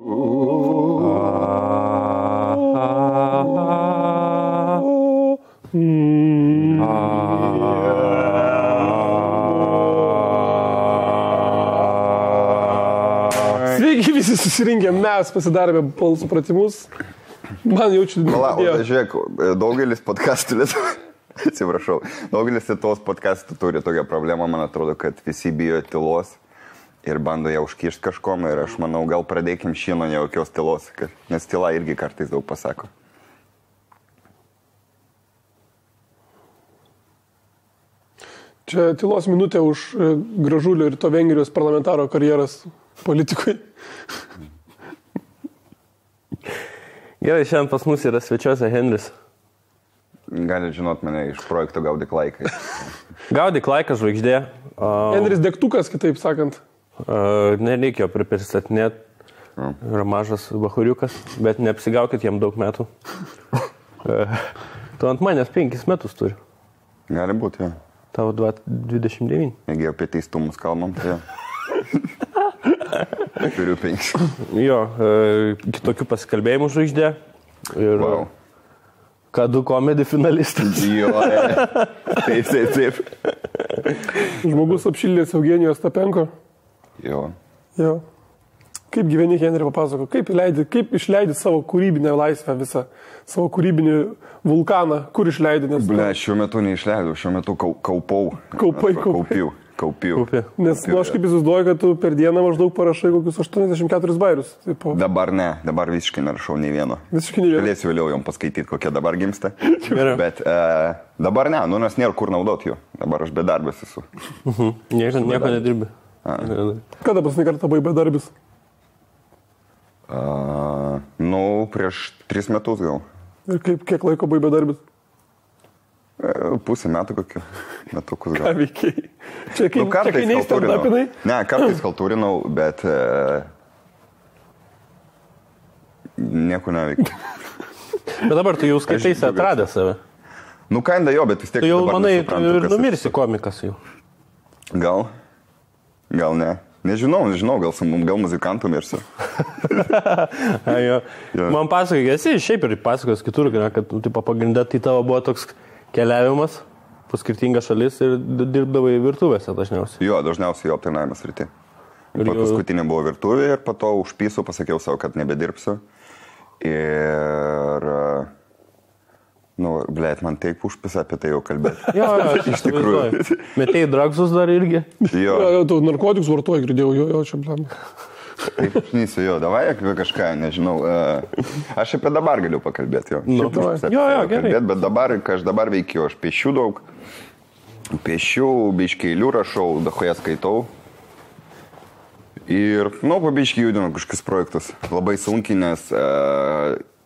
Sveiki visi susirinkę, mes pasidarėme balsų pratimus. Man jaučiu... Žiūrėk, daugelis podcastų atsiprašau, daugelis tos podcastų turi tokią problemą, man atrodo, kad visi bijo tylos ir bando ją užkišti kažkom ir aš manau, gal pradėkim šį nuo nejaukios tylos, nes tyla irgi kartais daug pasako. Čia tylos minutė už Gražulio ir to Vengrijos parlamentaro karjeras politikui. Gerai, šiandien pas mus yra svečiuose Henris. Gali žinot mane iš projekto Gaudyk laiką. Gaudyk laiką žvaigždė. Henris degtukas, kitaip sakant. Nereikėjo pristatinėti. Yra mažas bahuriukas, bet neapsigaukit jam daug metų. Tu ant manęs 5 metus turi. Gali būti, jo. Tavo 29. Jeigu apie teistumus kalbam, tai jo. Turiu 5. Jo, kitokių pasikalbėjimų žvaigždė. Ir wow. Kadu komedi finalistas. Jo, taip. Žmogus apšildęs Eugenijos Tapenko. Jo. Kaip gyveni, Henri, papasako, kaip išleidi savo kūrybinę laisvę visą, savo kūrybinį vulkaną, kur išleidi? Šiuo metu neišleidau, šiuo metu kaupiau. Nes aš kaip įsivaizduoju, kad tu per dieną maždaug parašai kokius 84 bairius. Dabar ne, dabar visiškai nerašau nei vieno. Galėsiu vėliau jom paskaityti, kokie dabar gimsta. Bet dabar ne, nes nėra kur naudoti jų. Dabar aš bedarbis esu. Nieko nedirbi. Kada paskutinį kartą buvai bedarbis? Prieš 3 metus gal. Ir kiek laiko buvai bedarbis? Pusę metų kokiu. Metukus gal. Ką veikiai? Čia kai neįstardapinai? Ne, kartais kaltūrinau, bet nieko neveikia. Bet dabar tu jau skaitaisi atradęs save. Kinda jo, bet vis tiek tu jau dabar manai, nesuprantu, ir numirsi komikas jau. Gal ne. Nežinau, gal muzikantų mirsiu. Man pasakai, esi šiaip ir pasakos kitur, kad pagrindę tai tavo buvo toks keliavimas po skirtingas šalis ir dirbdavai virtuvėse dažniausiai. Jo, dažniausiai aptarnavimas rytį. Paskutinė buvo virtuvė ir po to užpysiu, pasakiau savo, kad nebedirbsiu. Ir... man taip užpisa apie tai jau kalbėti. Jo, iš tikrųjų. Metėjai dragsus dar irgi? Jo. Tu narkotikus vartoji, girdėjau, jo, čia blam. Taip, šnysiu, jo, davai apie kažką, nežinau. Aš apie dabar galiu pakalbėti, jo. Gerai. Bet dabar, ką aš dabar veikiu, aš piešiu daug. Piešiu, biškiai eilių rašau, dahoje skaitau. Ir, pabiškiai judinu kažkokius projektus. Labai sunkiai, nes...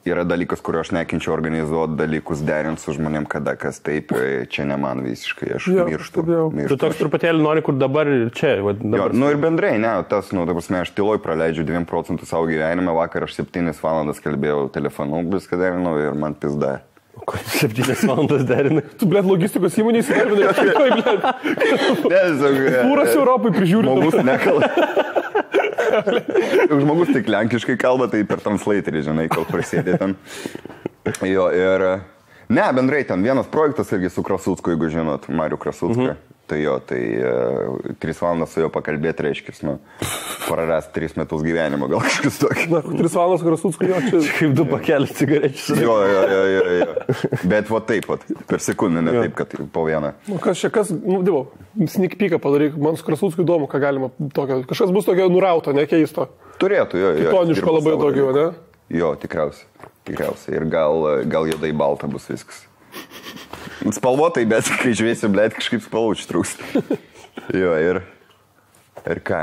Yra dalykas, kurio aš nekinčiau organizuoti, dalykus derinti su žmonėm, kada kas taip, čia ne man visiškai, aš mirštu. Tu toks truputėlį nori, kur dabar ir čia. Dabar. Ir bendrai, ne, aš tyloj praleidžiu 2% savo gyvenime, vakar aš 7 valandas kalbėjau telefonu, viską derinau ir man pizda. 7 valandas derinai? Tu, logistikos įmonės įdarbinai, Pūras Europai prižiūri. Žmogus nekala. Žmogus tik lenkiškai kalba, tai per translatorį, žinai, kol prasėdė ten. Jo, ir... Ne, bendrai ten vienas projektas irgi su Krasucku, jeigu žinot, Mariu Krasucką. Tai jo, 3 valandas su jo pakalbėti reiškis, prarast 3 metus gyvenimo, gal kažkas tokį. 3 valandas su Krasucku, jo, čia... Kaip 2 pakelis cigarečius. Jo. Bet taip, per sekundę, ne taip, kad po vieną. Sneak peeką padaryk, man su Krasucku įdomu, ką galima tokio. Kažkas bus tokio nurauto, nekeisto. Turėtų, jo. Kitoniško labai tokio, ne? Jo, tikriausiai. Ir gal juodai balta bus viskas. Spalvotai, bet kai žiūrėsi, kažkaip spalvučių trūksta. Jo, ir ką?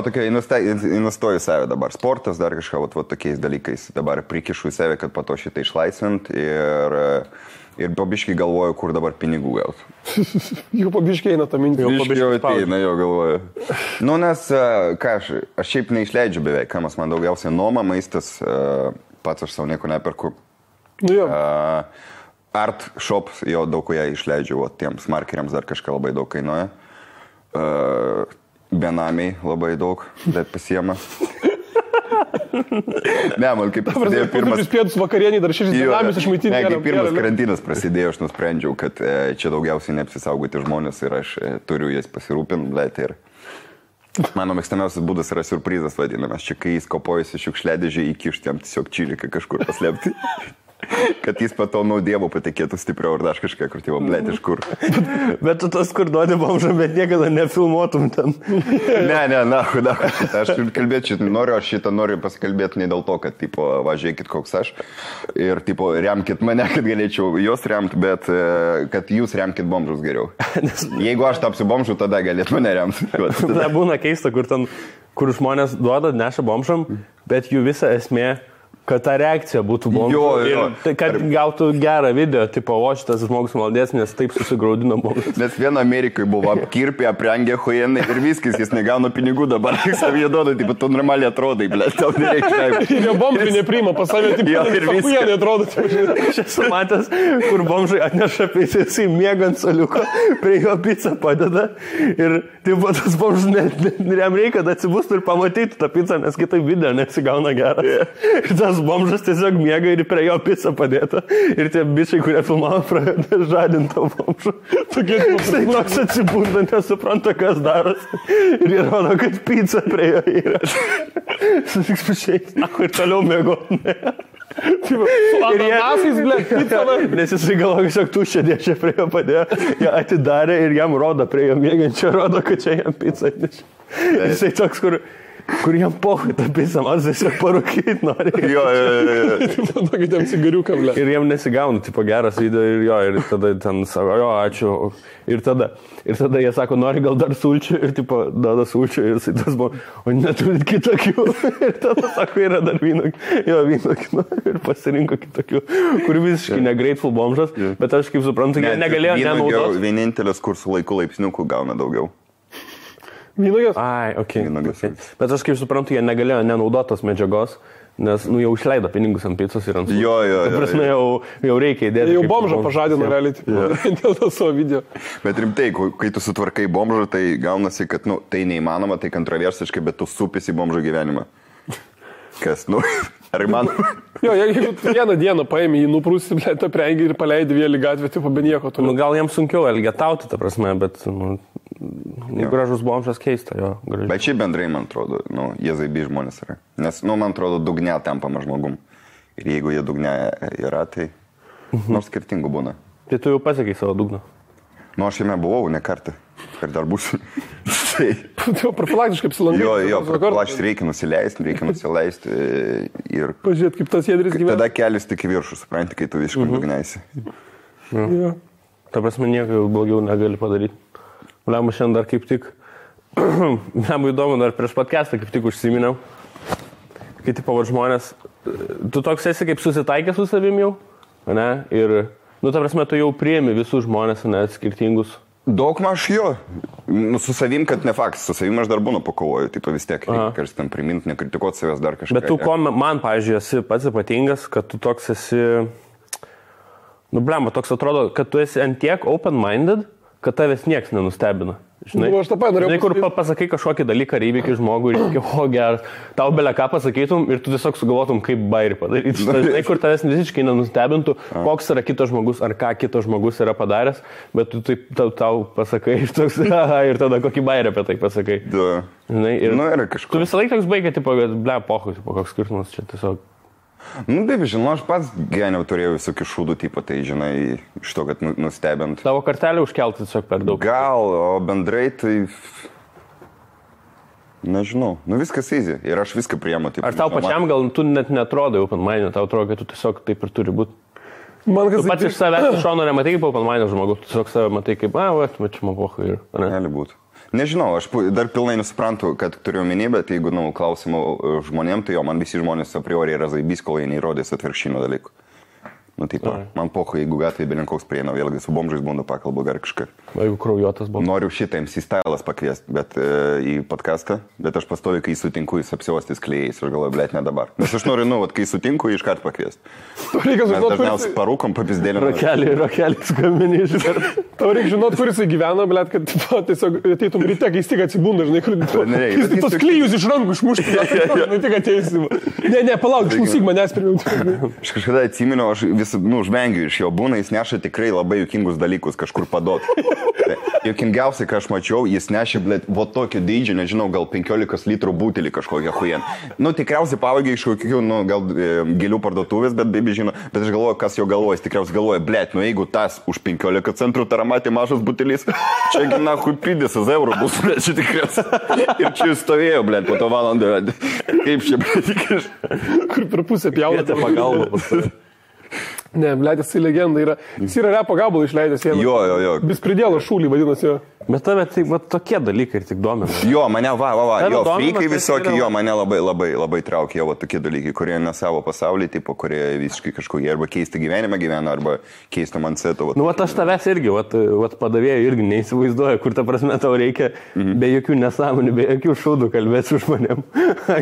Tokia investuoju į save dabar. Sportas, dar kažką, tokiais dalykais. Dabar prikišu į save, kad po to šitą išlaisvint ir pabiškai galvoju, kur dabar pinigų gauti. Jau pabiškai eina tą mintį. Jau ateina, jo galvoju. Nes, aš šiaip neišleidžiu beveik, kamas man daugiausiai nuoma, maistas, pats aš savo nieko neperku. Art shops, jo daug ko ją išleidžiu, tiems markeriams dar kažką labai daug kainuoja. Benamiai labai daug, bet pasiema. Ne, man kaip prasidėjo pirmas... Pietus vakarienį dar 6 dinamis išmaitinti. Ne, kaip pirmas karantinas prasidėjo, aš nusprendžiau, kad čia daugiausiai neapsisaugoti žmonės ir aš turiu jas pasirūpinti, blėt, ir mano mėgstamiausias būdas yra surprizas vadinamas. Čia kai jis kopojasi šiukšliadėžį, įkišti jam tiesiog čiliką kažkur paslėpti. Kad jis patau dievo patikėtų stipriau ar dar kažką, kur tėvo, blėt, iš kur. Bet tu tas, kur duodi bomžą, bet niekada nefilmuotum ten. Ne, aš kalbėti šitą noriu, aš šitą noriu pasikalbėti ne dėl to, kad, tipo, važiuokit koks aš ir, tipo, remkit mane, kad galėčiau juos remti, bet kad jūs remkit bomžus geriau. Jeigu aš tapsiu bomžu, tada galėt mane remti. Tai būna keista, kur žmonės duoda, neša bomžam, bet jų visa esmė, kad ta reakcija būtų bomžų. Jo. Tai kad gautų gerą video, tipo, o šitas žmogus maldės, nes taip susigraudino bomžas. Nes viena Amerikai buvo apkirpė, aprengė huienai ir viskas, jis negauna pinigų dabar, tik savie duoda, tipo, tu normaliai atrodai, blėt, tau nereikia. Ir jo bomžai nepriima pas save, tipo, ir huienai atrodo. Aš esu matęs, kur bomžai atneša pizzą, jisai miega ant soliuko, prie jo pizzą padeda ir, tipo, tas bomžas, jam reikia, kad atsibūstų ir pamatytų tą pizzą, nes kitaip video nesigauna geras. Ir tas bomžas tiesiog miega ir prie jo pizzą padėta. Ir tie bičiai, kurie filmavo, pradeda žadinti tą bomžą. Jisai toks atsibūna, nesupranta, kas darosi. Ir jie rodo, kad pizza prie jo yra. Susitiks pašiais, ir toliau mėgoti. Ir jie... Nes jisai galvo, kad tuščia dėčia prie jo padėjo. Jie atidarė ir jam rodo prie jo mėgančio, rodo, kad čia jam pizza atnešė. Jisai toks, kur jam pohui tą pizzą, man tiesiog parūkyti nori. Jo. Tokit jam cigariuką, ble. Ir jam nesigauna, tipo, geras video ir jo, ir tada ten sako, jo, ačiū. Ir tada jie sako, nori gal dar sulčių ir, tipo, duoda sulčių ir jisai tas buvo, o neturit kitokių. Ir tada sako, yra dar vynokių. Ir pasirinko kitokių, kur visiškai negrateful bomžas, bet aš kaip suprantu, jie negalėjo nenaudoti. Vienintelis, kur su laiku laipsniukų gauna daugiau. Vynuogės? Ai, okay. Okay. Bet aš kaip suprantu, jie negalėjo nenaudotos medžiagos, nes, jau išleido pinigus ant pizzos ir ant sūrių. Jo. Ta prasme, jau reikia įdėti. Jau bomžą pažadino realiai, dėl to savo video. Bet rimtai, kai tu sutvarkai bomžą, tai gaunasi, kad, tai neįmanoma, tai kontroversiškai, bet tu supisi bomžo gyvenimą. Kas, ar įmanoma? Jo, jeigu vieną dieną paėmė, jį nuprūsi, tą prengį ir paleidai vėlį gatvę, tipo, be nieko. Gal jiems sunkiau elgetauti, ta prasme, bet, gražus bomžas keista, jo. Gražus. Bet šiaip bendrai, man atrodo, jie zaibi žmonės yra. Nes, man atrodo, dugne tampama žmogum. Ir jeigu jie dugne yra, tai nors skirtingų būna. Tai tu jau pasiekai savo dugną? Aš jame buvau ne kartą. Ir dar būsiu. Profilaktiškai apsilankai. Jo, profilaktiškai reikia nusileisti. Ir... Pažiūrėt, kaip tas jėdris gyvena. Tada kelias tik į viršų, supranti, kai tu visiškai dugneisi. Jo. Ta prasme, nieko blogiau negali padaryti. Lema šiandien dar kaip tik, man įdomu, dar prieš podcastą kaip tik užsiminiau, kai tipo žmonės, tu toks esi kaip susitaikęs su savim jau, ne? Ir, ta prasme, tu jau priemi visus žmonės, ne, skirtingus. Daugmaž jo. Su savim, kad ne faktas, su savim aš dar būnu pakovoju, tipo vis tiek reikia kažkas ten priminti, nekritikuoti savęs dar kažką. Bet tu, man, pavyzdžiui, esi pats ypatingas, kad tu toks esi, toks atrodo, kad tu esi ant tiek open-minded, kad tavęs nieks nenustebina. Žinai, aš tą pat norėjau. Žinai, kur pasakai kažkokį dalyką ar įvykį žmogui ir sakai, o geras, tau belia ką pasakytum ir tu tiesiog sugalvotum, kaip bairį padaryti. Žinai, kur tavęs visiškai nenustebintų, koks yra kitas žmogus ar ką kitas žmogus yra padaręs, bet tu taip tau pasakai ir toks, ir tada kokį bairį apie tai pasakai. Žinai, ir tu visą laiką toks baigia, tipo, pohui, koks skirtumas čia tiesiog. Taip, žinau, aš pats gyvenime turėjau visokių šūdų tipą, tai, žinai, iš to, kad nustebint. Tavo kartelį užkelti tiesiog per daug. Gal, o bendrai tai... Nežinau, viskas easy ir aš viską priemu. Ar tau pačiam gal tu net netrodai open-minded, tau atrodo, kad tu tiesiog taip ir turi būti? Tu pats iš savęs iš šono nematai kaip open-minded žmogus, tu tiesiog save matai kaip, čia man pohui ir... Gali būti. Nežinau, aš dar pilnai nesuprantu, kad turiu omeny, bet jeigu klausimų žmonėm, tai man visi žmonės a priori yra zaibys, kol jie neįrodės atvirkštinio dalykų. Nu, taip, man pocho, jeigu gatvėje belinkoks prieina, vėlgi su bomžais būna pakalbu ar kažką. Jeigu kraujuotas buvo. Noriu šitą MC Stylas pakviesti, bet į podcastą, bet aš pastoviu, kai sutinku, jis apsiuostis klėjais ir galvoju, blėt, ne dabar. Nes aš noriu, kai sutinku, iš karto pakviesti. Reikia Mes žinot, dažniausiai parūkom papizdėlį. Rokelį skambini iš karto. Tau reikia žinot, kur jisai gyvena, blėt, kad tiesiog ateitum ryte, kai tik atsibunda, žinai, kur tos klyjus iš rankų išmušti, žinai, tik ateisim. Ne, palauk, išklausyk manęs pirmiau. Aš kažkada atsiminiau, aš vis, žvengiu iš jo, būna, jis neša tikrai labai juokingus dalykus kažkur padot. Juokingiausiai, ką aš mačiau, jis nešė, blėt, vo tokio dydžio, nežinau, gal 15 litrų butelį kažkokią hujen. Tikriausiai pavagė iš kokių, gal gėlių parduotuvės, bet baby žino, bet aš galvoju, kas jo galvoja, jis tikriausiai galvoja, blėt, jeigu tas už 15 centrų taramatė mažas butelis, čia gina huipidės eurų bus, blėt, čia tikriausiai. Ir čia jis stovėjo, blėt, po to valandą, kaip čia, blėt, kur per pusę pjaunate pagalbą. Ne, blėt, jisai legenda yra. Jis yra repo gabalą išleidęs. Jo. Bispridėlo šūlį vadinasi jo. Bet tave tai tokie dalykai ir tik domina. Jo, mane jo, freikai tai visokie, jo, mane labai traukia jo tokie dalykai, kurie ne savo pasaulį, tipo, kurie visiškai kažkokie arba keisti gyvenimą gyvena, arba keisti mindsetą. Aš tavęs irgi, padavėjai irgi neįsivaizduoju, kur ta prasme tau reikia be jokių nesąmonių, be jokių šūdų kalbėti su žmonėm.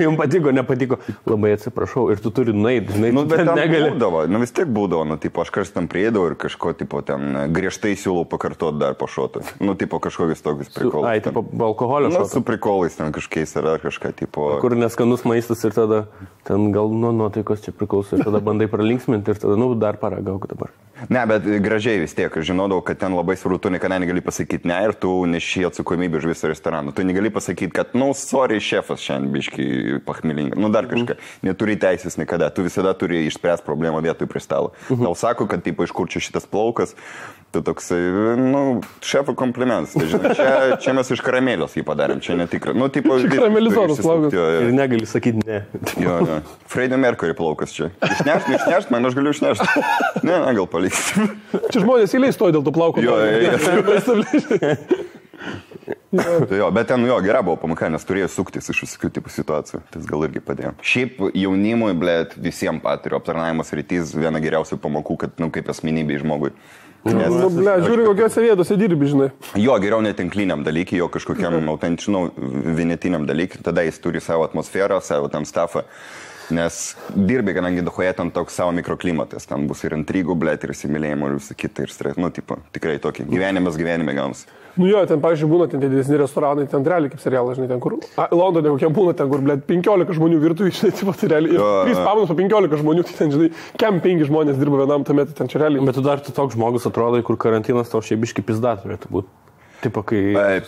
Jums patiko, nepatiko, labai atsiprašau ir tu turi nueiti, žinai, bet negali. Vis tiek būdavo, tipo, aš kas tam prieidavau ir kažko, tipo, ten griežtai siūlau pakartoti dar po šotų. Tipo, kažkokius tokius prikolus. Ai, tipo, alkoholio šotų. Su prikolais ten kažkiais ar kažką, tipo... Kur neskanus maistas ir tada ten gal nuo nuotaikos čia priklauso ir tada bandai pralinksminti ir tada, dar paragauk dabar. Ne, bet gražiai vis tiek, aš žinodavau, kad ten labai svarbu, tu niekada negali pasakyti ne ir tu neši atsakomybę už visą restoraną. Tu negali pasakyti, kad, sorry, šefas šiandien biškai pachmilinga, dar kažką. Neturi teisės niekada, tu visada turi išspręsti problemą vietoj prie stalo. Tau sako, kad, tipo, iš kur čia šitas plaukas, tu toksai, šefo komplimentas. Tai, žinai, čia mes iš karamelės jį padarėm, čia netikra. Tipo, čia karamelizuotas plaukas. Ir negali sakyti ne. Jo. Freddie Mercury plaukas čia. Išnešt, man aš galiu išnešti. Ne, gal palikti. Čia žmonės įleis stoja dėl tų plaukų. Jo, bet ten gera buvo pamoka, nes turėjo suktis iš visokių tipų situacijų. Tas gal irgi padėjo. Šiaip jaunimui, blėt, visiems patiriu aptarnavimas rytys viena geriausių pamokų, kad, kaip asmenybei žmogui. Žiūri, kokiose vietose dirbi, žinai. Jo, geriau netinkliniam dalykui, jo kažkokiam autentiškam, vienetiniam dalykui, tada jis turi savo atmosferą, savo tam stafą. Nes dirbi, kadangi Dohoje ten toks savo mikroklimatas, ten bus ir intrigų, blėt, ir įsimylėjimo, ir visą kitą, ir stres, tipo, tikrai tokį. Gyvenime gaunasi. Ten, pavyzdžiui, būna ten didesni restoranai, ten realiai kaip serialas, žinai, ten kur, Londone kokie būna, ten kur, blėt, 15 žmonių virtuvėje, žinai, tipo, tai realiai, ir 3 pamanos po 15 žmonių, tai ten, žinai, kem 5 žmonės dirba vienam tame, tai ten čia realiai. Bet tu dar toks žmogus atrodo, kur karantinas tau šiaip biški pizda turėtų būti. Tipo, kai...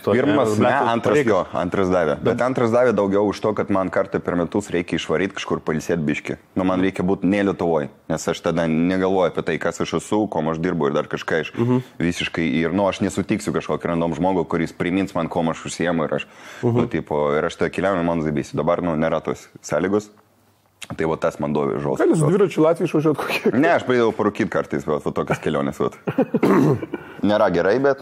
Pirmas, antras davė. Bet antras davė daugiau už to, kad man kartą per metus reikia išvaryti kažkur pailsėti biški. Man reikia būti ne Lietuvoje, nes aš tada negalvoju apie tai, kas aš esu, kom aš dirbu ir dar kažką iš visiškai. Ir, aš nesutiksiu kažkokį random žmogų, kuris primins man, kom aš užsiemu ir aš, ir aš tada keliauju, man zaibėsiu. Dabar, nėra tos sąlygos. Tai tas man dovė žodžiu. Gal jūs dviračių Latvijų išvažiuot kokie? Ne, aš praeidavau parūkyti kartais, bet tokias kelionės. Nėra gerai, bet,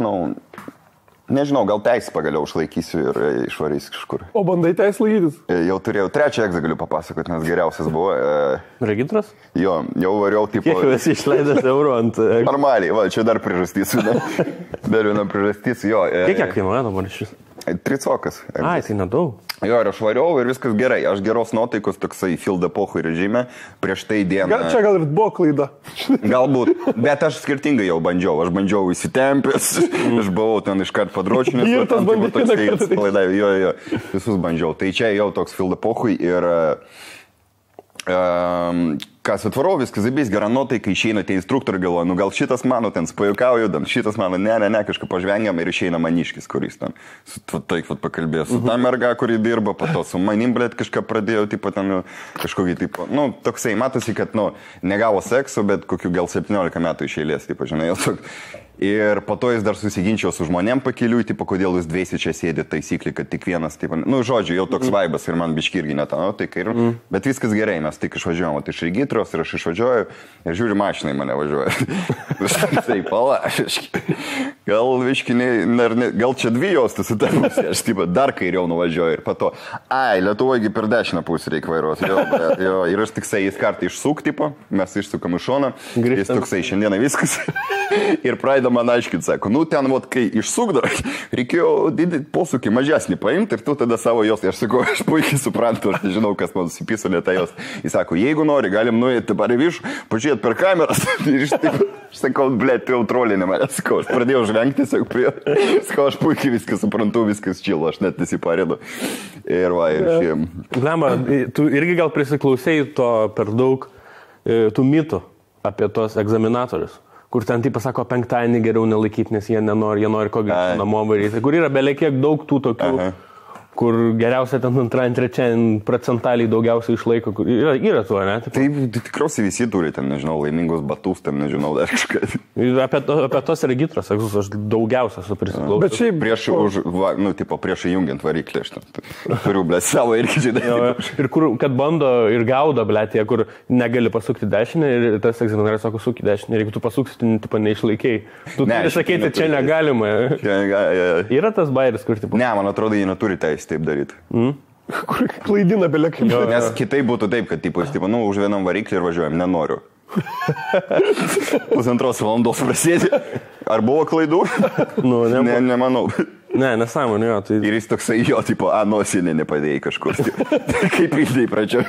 nežinau, gal teisę pagaliau išlaikysiu ir išvarysiu kažkur. O bandai teisę laikytis? Jau turėjau, trečią egzą galiu papasakoti, nes geriausias buvo. Regitras? Jo, jau variau, tipo... Kiek jau esi išleidęs eurų ant... Normaliai, čia dar priežastys. Dar viena priežastys, jo. Kiek kainuoja dabar šis? 3 cokas. Ai, tai nedaug. Jo, ir aš variau ir viskas gerai. Aš geros nuotaikos toksai filda pohui režime. Prieš tai dieną... Čia gal ir buvo klaida. Galbūt, bet aš skirtingai jau bandžiau. Aš bandžiau įsitempęs, aš buvau ten iškart padročinęs. Ir tas bandė. Jo, visus bandžiau. Tai čia jau toks filda pohui ir... Kas atvarau, viskas zaibės, gera nuotaika, išeina tie instruktoriai, galvoja, gal šitas mano ten spajukauju, šitas mano, ne, kažką pažvengiam ir išeina maniškis, kuris ten, taip pakalbėjo su ta merga, kuri dirba, po to su manim, blėt, kažką pradėjo, tipo, ten, kažkokį, tipo, toksai, matosi, kad, negavo sekso, bet kokių gal 17 metų iš eilės, tipo, žinai, jau toks. Ir po to jis dar susiginčiau su žmonėm pakeliui, tipo, kodėl jūs dviesi čia sėdė taisyklį, kad tik vienas, tipo, žodžiu, jau toks vaibas ir man biški irgi netą, bet viskas gerai, mes tik išvažiuojam, iš regitros ir aš išvažiuoju ir žiūri, mašinai mane važiuoja. Tai pala, gal viškiniai, gal čia dvi juostas su ta pusė, aš taip dar kairiau nuvažiuoju ir pato, Lietuvoje per dešinę pusę reikia vairuoti. Jo, ir aš tiksai jis kartą išsuk, tipo, mes išsukam iš šoną, jis tiksai šiandieną viskas. Ir pradeda man aiškinti, sako, ten, kai išsukdavo, reikėjo didį posūkį mažesnį paimti ir tu tada savo jos. Aš sakau, aš puikiai suprantu, aš nežinau, kas man susipiso lėta jos. Jis sako, jeigu nori, galim nuėti dabar į viršų, pažiūrėti per kameras. Ir aš sakau, blėt, tu jau trolinė mane. Sakau, aš pradėjau žvengti, sakau, aš puikiai viską suprantu, viskas čilo, aš net nesiparėdu. Ir va, ir šiem. Glema, tu irgi gal prisiklausėjai to per daug tų mitų apie tos egzaminatorius, kur ten taip pasako, penktadienį geriau nelaikyti, nes jie nenori, jie nori ko gero namo varyti, kur yra belekiek daug tų tokių, kur geriausia ten antrąjį, trečiąjį procentaliai daugiausiai išlaiko, kur yra tuo, ne? Tai tikriausiai visi turi ten, nežinau, laimingus batus, ten, nežinau, dar kažką. Apie tos regitros, aš daugiausia su prisiklausau. Bet šiaip prieš įjungiant variklį, aš turiu, blėt, savo irgi žinai. Ir kur, kad bando ir gaudo, blėt, tie, kur negali pasukti dešinę ir tas egzaminatorius sako, suki dešinę, ir jeigu tu pasuksi, tai neišlaikiai. Tu turi sakyti, čia negalima. Yra tas bairis, kur tipo. Ne, man atrodo, jie neturi teisę taip daryti. Kur klaidina belekai. Nes kitai būtų taip, kad už vienam variklį ir važiuojam, nenoriu. 1,5 valandos prasėdė. Ar buvo klaidų? Nemanau. Ne, nesąmonė, jo. Tai... Ir jis toksai jo, nosinė nepadėjai kažkur. Kaip įdėjai pradžio.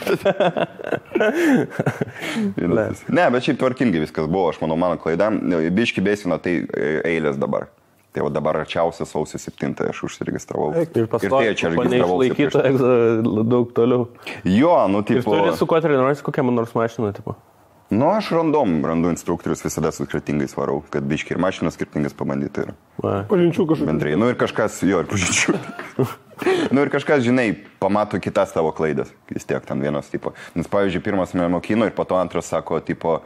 Ne, bet šiaip tvarkingai viskas buvo, aš manau, mano klaida. Biški besino, tai eilės dabar. Tai dabar arčiausia sausio 7 aš užsiregistravau. Ir pastoju, neišlaikyta daug toliau. Jo, Ir turi su kuo treniruojasi, kokią man nors mašiną, tipo? Aš randu instruktorius, visada su skirtingais varau, kad biški ir mašinas skirtingas pabandyti. Pažinčių kažkokių. Bendrai, ir kažkas, ir pažinčių. Ir kažkas, žinai, pamato kitas tavo klaidas. Vis tiek ten vienas, tipo. Nes, pavyzdžiui, pirmas mane mokino ir po to antras sako, tipo,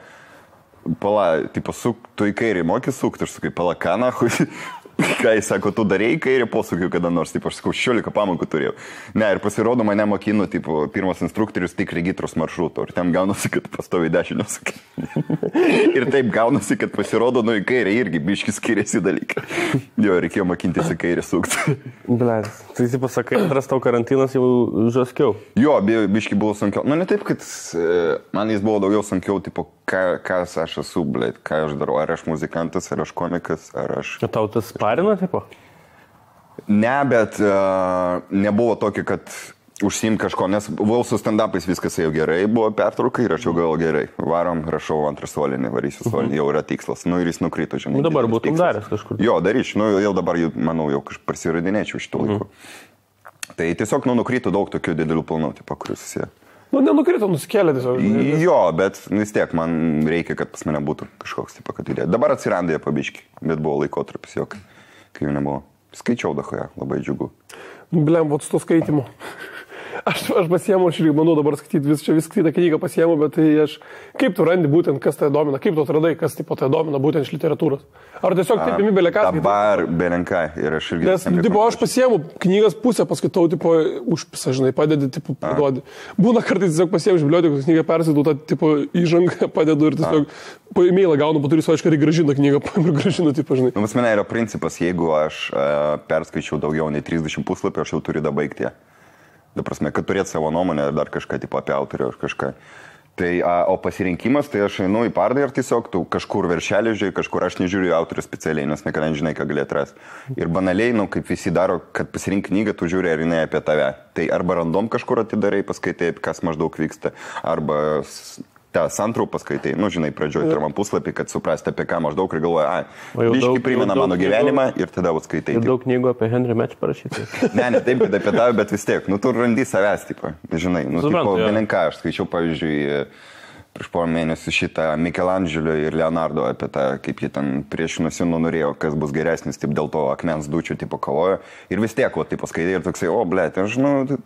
tu į kairį moki sukti, aš sakai, ką nahui. Ką jis sako, tu darėjai kairį posūkių kada nors, aš sakau, 16 pamokų turėjau. Ne, ir pasirodo, mane mokino, pirmas instruktorius tik regitros maršruto, ir ten gaunasi, kad pastoviai dešinio sakai. Ir taip gaunasi, kad pasirodo, į kairį irgi biški skiriasi dalykai. Jo, reikėjo mokintis į kairį sukti. Blet, tai pasakai, antras tau karantinas jau žaskiau. Jo, biški buvo sunkiau. Ne taip, kad man jis buvo daugiau sunkiau, kas aš esu, blet, ką aš darau, ar aš muzikantas, ar aš komikas, ar aš... Tau tas parina, tipo? Ne, bet nebuvo tokio, kad užsiim kažko, nes buvau su stand-upais, viskas jau gerai, buvo pertrauka ir aš jau gal gerai. Varom, rašau antrą solinį, varysiu solinį, jau yra tikslas. Ir jis nukrito, žinai. Dabar būtum daręs kažkur. Jo, daryčiau, jau dabar, manau, jau prasiradinėčiau šitų laikų. Tai tiesiog, nukrito daug tokių didelių planų, kuriuos susiję. Nenukrito, nusikėlė tiesiog. Jo, bet vis tiek man reikia, kad pas mane būtų kažkoks, kad idėja. Dabar atsirandė pabiški, bet buvo laikotarpis, kai jų nebuvo. Skaičiau dahoje, labai džiugu. Blem, su to skaitimu. Aš pasiemu, aš irgi manau dabar skaityti, viską skaitą knygą pasiemu, bet tai kaip tu randi būtent, kas tai domina, kaip tu atradai, kas tai domina būtent iš literatūros. Ar tiesiog taip imi beleką? Dabar belenką ir aš irgi. Nes, aš pasiemu knygas pusę, paskaitau, užpisa, žinai, padedi, paduodi. Būna kartais tiesiog pasiemu iš bibliotekos knygą, persidau tą, įžangą padedu ir tiesiog po e-mailą gaunu, po turiu aiškiai grąžinu knygą, grąžinu, žinai. Pas mane yra principas, jeigu aš perskaičiau daugiau nei 30 puslapį, aš jau turiu dabaigti. Da prasme, kad turėt savo nuomonę ar dar kažką apie autorių ar kažką. Tai, o pasirinkimas, tai aš einu į parodą ir tiesiog tu kažkur veršelį žiūrėjai, kažkur aš nežiūriu autorių specialiai, nes niekada nežinai, ką gali atrasti. Ir banaliai, kaip visi daro, kad pasirink knygą, tu žiūri, ar jinai apie tave. Tai arba random kažkur atidarai, paskaitai, kas maždaug vyksta, arba tą santraupą paskaitai, žinai, pradžioj pirmam puslapį, kad suprasti, apie ką maždaug ir galvoja, biški primena mano gyvenimą ir tada skaitai. Ir daug knygų apie Henry Match parašyti. Ne, taip, kad apie tave, bet vis tiek, tu randi savęs, žinai, belenką, aš skaičiau, pavyzdžiui, prieš porą mėnesių šitą Michelangelo ir Leonardo apie tą, kaip jie ten priešinosi, norėjo, kas bus geresnis, dėl to akmens dučių kovojo. Ir vis tiek, skaitai ir toksai, blėt, aš,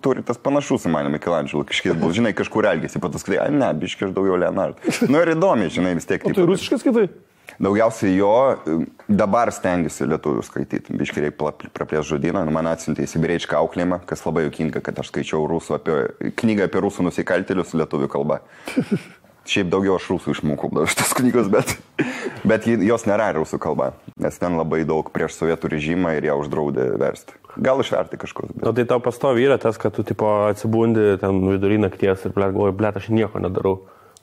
turi tas panašus į mane Michelangelo, kažkiek bus, žinai, kažkur elgėsi, pat skaitai, ne, biškai aš daugiau Leonardo. Ir įdomi, žinai, vis tiek. O tai rusiškai skaitai? Daugiausiai jo, dabar stengiuosi lietuvių skaityti, biškai reikia praplės žodyną, man atsiuntė į sibiriečką auklėjimą, kas labai juokinga, kad aš skaičiau knygą apie rusų nusikaltėlius lietuvių kalba. Šiaip daugiau aš rusų išmokau dar šitas knygos, bet jos nėra rusų kalba, nes ten labai daug prieš sovietų režimą ir ją uždraudė versti. Gal išverti kažkur. O tai tau pastovi yra tas, kad tu tipo atsibundi ten vidury nakties ir galvoji, blėt, aš nieko nedarau.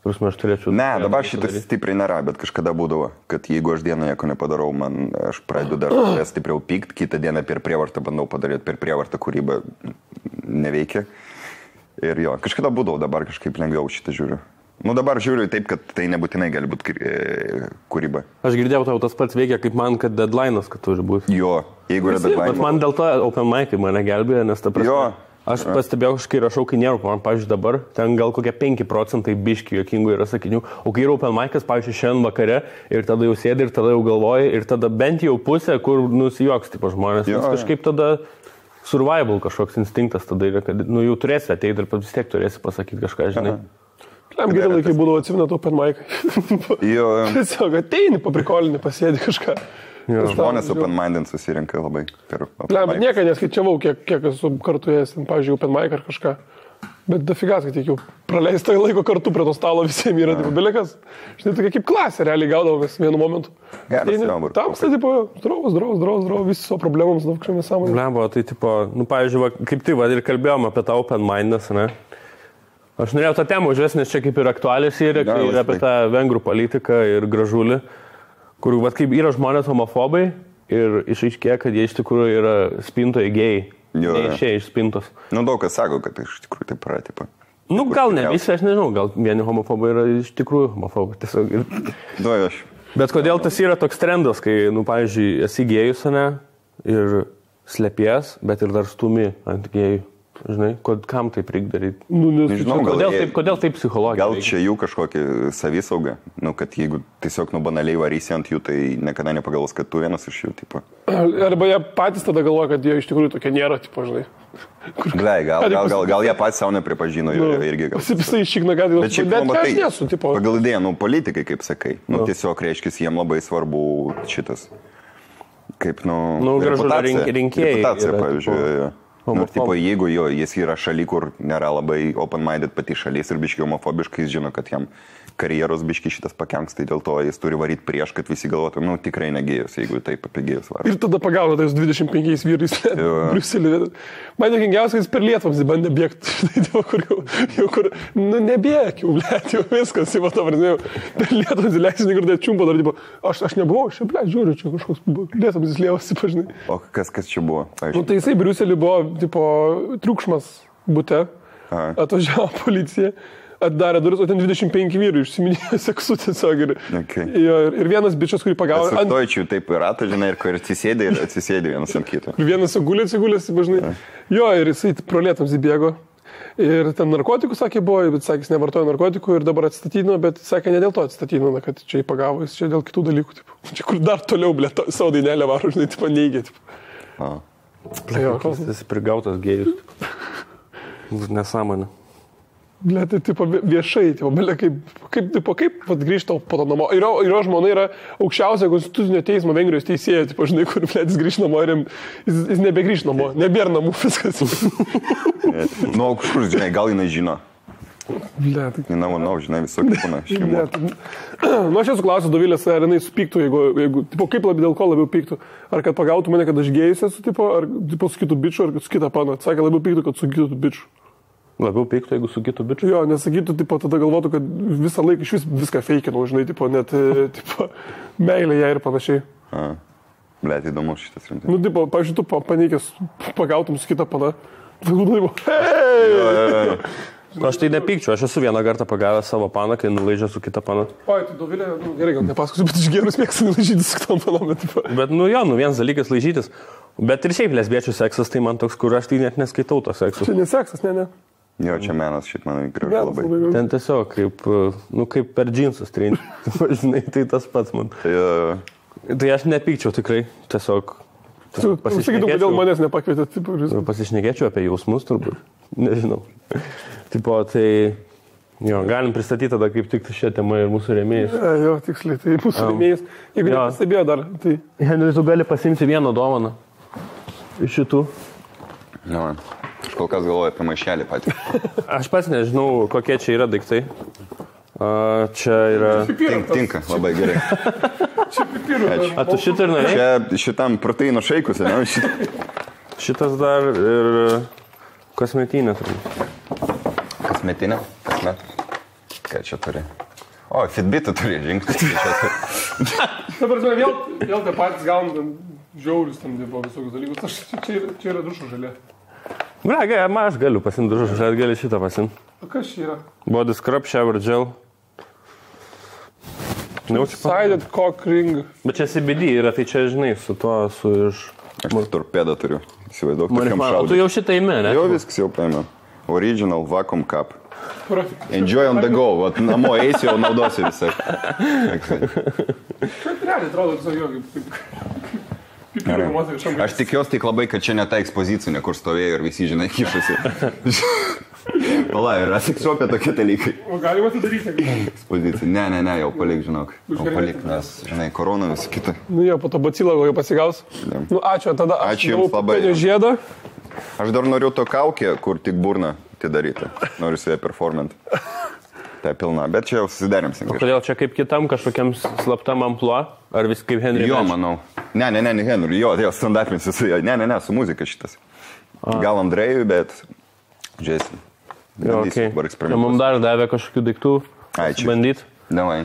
Aš turėčiau... Ne, dabar šitas stipriai nėra, bet kažkada būdavo, kad jeigu aš dieną nieko nepadarau, aš pradedu dar stipriau pykt, kitą dieną per prievartą bandau padaryti, per prievartą kūrybą neveikia. Ir jo, kažkada būdavo, dabar kažkaip lengviau šitą žiūriu. Nu dabar žiūriu taip, kad tai nebūtinai gali būti kūryba. Aš girdėjau, tau tas pats veikia kaip man, kad deadline'as, kad turi būti. Jo, jeigu yra deadline. Bet man dėl to open mic'ai mane gelbėjo, nes ta prasme... Jo. Aš pastebėjau, kai rašau, kai nėra, man, pavyzdžiui, dabar, ten gal kokie 5% biški jokingų yra sakinių, o kai yra open mic'as, pavyzdžiui, šiandien vakare ir tada jau sėdi ir tada jau galvoji ir tada bent jau pusė, kur nusijuoks tipo žmonės, nes kažkaip tada survival kažkoks instinktas tada yra, kad jau turėsi ateiti ir vis tiek turėsi pasakyti kažką, žinai. Gerai laikai būdavo atsiminat open mic'ai. Tiesiog ateini, paprikolinį, pasėdi kažką. Žmonės open-minded susirinka labai per open mic. Bet nieką neskaičiavau, kiek esu kartu ėjęs, pavyzdžiui, open mic ar kažką. Bet dafigas, kad tiek jau praleista laiko kartu prie to stalo visiems yra, tipo, belekas. Žinai, tokia kaip klasė realiai gaudavomės vienu momentu. Tamsta, tipo, draus, visi savo problemams, daug kažkomis sąmonės. Blembo, tai, tipo, pavyzdžiui, kaip tai, ir kalbėjom apie tą open-mindedness, ne? Aš norėjau tą temą užvesti, nes čia kaip ir aktualius yra, ir apie tą vengrų politiką ir gražulį. Kur, kaip yra žmonės homofobai ir išaiškėja, kad jie iš tikrųjų yra spintoje gėjai. Neišėję iš spintos. Nu, daug kas sako, kad iš tikrųjų taip yra, tipo. Nu, gal ne visi, aš nežinau, gal vieni homofobai yra iš tikrųjų homofobai. Tiesiog. Aš. Bet kodėl tas yra toks trendas, kai, pavyzdžiui, esi gėjus, ne, ir slepies, bet ir dar stumi ant gėjų. Žinai, kam taip reikia daryti? Nežinau, kodėl taip psichologiškai? Gal čia jų kažkokia savisauga, kad jeigu tiesiog banaliai varysi ant jų, tai niekada nepagalvos, kad tu vienas iš jų, tipo. Arba jie patys tada galvoja, kad jie iš tikrųjų tokie nėra, tipo, žinai. Gal jie patys savo nepripažino irgi. Pasipisa iššikna, kad aš nesu, tipo. Pagal idėją, politikai, kaip sakai, tiesiog reiškia, jiem labai svarbu šitas, kaip, reputacija, pavyzdžiui. Tipo, jeigu jis yra šaly, kur nėra labai open-minded pati šalis ir biški homofobiškai, jis žino, kad jam karjeros biški šitas pakenks, tai dėl to jis turi varyti prieš, kad visi galvotų, tikrai negėjus, jeigu taip apie gėjus varai. Ir tada pagavo tais 25 vyrais Briuselį. Man jokingiausia, jis per Lietuvams bandė bėgti, kur, nebėk, jau viskas, jau per Lietuvams įleisini, kur tai čiumpa, dar, aš nebuvau, žiūriu, čia kažkoks Lietuvams įslėvosi, pažinai. O kas čia buvo? Tai jisai Briuselį buvo, triukšmas bute, atvažiavo policija. Atdarė duris, o ten 25 vyrų išsiminėjo seksu tiesiog. Ir vienas bičias, kurį pagavo... Sustoičių taip yra, žinai, ir atsisėdė vienas ant kito. Ir vienas atsigulėsi, žinai. Jo, ir jisai pro Lietuvams įbėgo. Ir ten narkotikų, sakė, buvo, bet sakė, jis nevartojo narkotikų ir dabar atstatydino, bet sakė, ne dėl to atstatydino, kad čia jį pagavo, jis čia dėl kitų dalykų. Tipo. Čia kur dar toliau, savo dainelę varo, žinai, tipo, neigė. Jis prigautas gėjus. Nesąmonė. Ble, tai tipo viešai, tipo, kaip grįžta po to namo. Ir jo žmona yra aukščiausia konstitucinio teismo Vengrijos teisėja, tipo, žinai, kur jis grįž namo ir jis nebegrįž namo, nebėra namų viskas. Kažkur, žinai, gal jinai žino. Ble, žinai, visokių būna. Aš esu klausęs Dovilės, ar jinai supyktų, jeigu tipo, kaip dėl ko labiau pyktų. Ar kad pagautų mane, kad aš gėjus esu, tipo, ar tipo, su kitu bičiu, ar su kita pana. Sakė, labiau pyktų, kad su kitu bičiu. Labiau pyktų, jeigu su kitu bičiu? Jo, nesakytų, tipo, tada galvotų, kad visą laiką iš viską feikinau, žinai, tipo, net, tipo, meilė ją ir panašiai. Blet, įdomu šitas rimtai. Tipo, pavyzdžiui, tu paneikęs pagautum su kita pana. Tipo, hei! Aš tai nepykčiau, aš esu vieną kartą pagavęs savo paną, kai nulaižė su kita pana. Oi, tai Dovilė, gerai, gal nepasakosiu, bet iš gerus mėgstu laižytis su kitom panom. Bet, vienas dalykas laižytis. Bet ir šiaip lesbiečių seksas, tai man toks, kur aš tai net neskaitau to sekso. Čia neseksas, ne. Jo, čia menas šit man gražu labai. Ten tiesiog kaip per džinsus trinti. Žinai, tai tas pats man. Tai aš nepykčiau tikrai, tiesiog Sakytum, kodėl manęs nepakvietė. Pasišnekėčiau apie jausmus turbūt. Nežinau. Tipo, tai galim pristatyti tada kaip tik šią temą ir mūsų rėmėjus. Jo, tiksliai, tai mūsų rėmėjus. Jeigu nepastebėjo dar, tai... Henry, tu gali pasimti vieną dovaną iš šitų. Aš kol kas galvoju apie maišelį patį. Aš pats nežinau, kokie čia yra daiktai. Čia yra... Tinka, labai gerai. Čia pipirų. A, tu šitą ir norėjai? Čia šitam proteino šaikus, ne? Šitas dar ir kosmetinė. Kasmetinė? Kasmet? Ką čia turi? O, Fitbitą turi žingsnį. Dabar vėl tie patys gaunam žiaurius tam dėbo visokius dalykus. Čia yra dušo žalė. Aš galiu pasimti dušo žalė, gali šitą pasimti. O kas čia yra? Body scrub, shower gel. Sided cock ring. Bet čia CBD yra, tai čia, žinai, su tuo, su iš... Aš torpedą turiu. Įsivaizduok, tokiam O šaudyti. tu jau šitą įmė, ne? Jau viskas jau paėmė. Original vacuum cup. Perfect. Enjoy on the go. Vat namo eisi, jau naudosi visai. Čia realiai atrodo visai jo, kaip pipirų moterį šiam. Aš tikiuosi tik labai, kad čia ne ta ekspozicinė, kur stovėjo ir visi, žinai, kišasi. Pala, yra seksuopė tokie dalykai. O galima tai daryti? Ekspozicija. Ne, jau palik, žinok. Jau palik, nes, žinai, korona visą kitą. Nu jo, po to bacilą jau pasigaus. Nu ačiū, tada aš Ačiū jums labai. Žiedą. Aš dar noriu to kaukę, kur tik burna atidaryti. Noriu su ją performant. Tai pilna, bet čia jau susidarimsim. Kodėl čia kaip kitam kažkokiam slaptam ampluo? Ar vis kaip Henry? Jo, manau. Ne, Henry, jo, stand-upinsi su jo. Ne, su muzika šitas. Gal Andrėjui, bet žiūrėsim. Jo, okay. Mums dar davė kažkokių daiktų bandyti. Davai.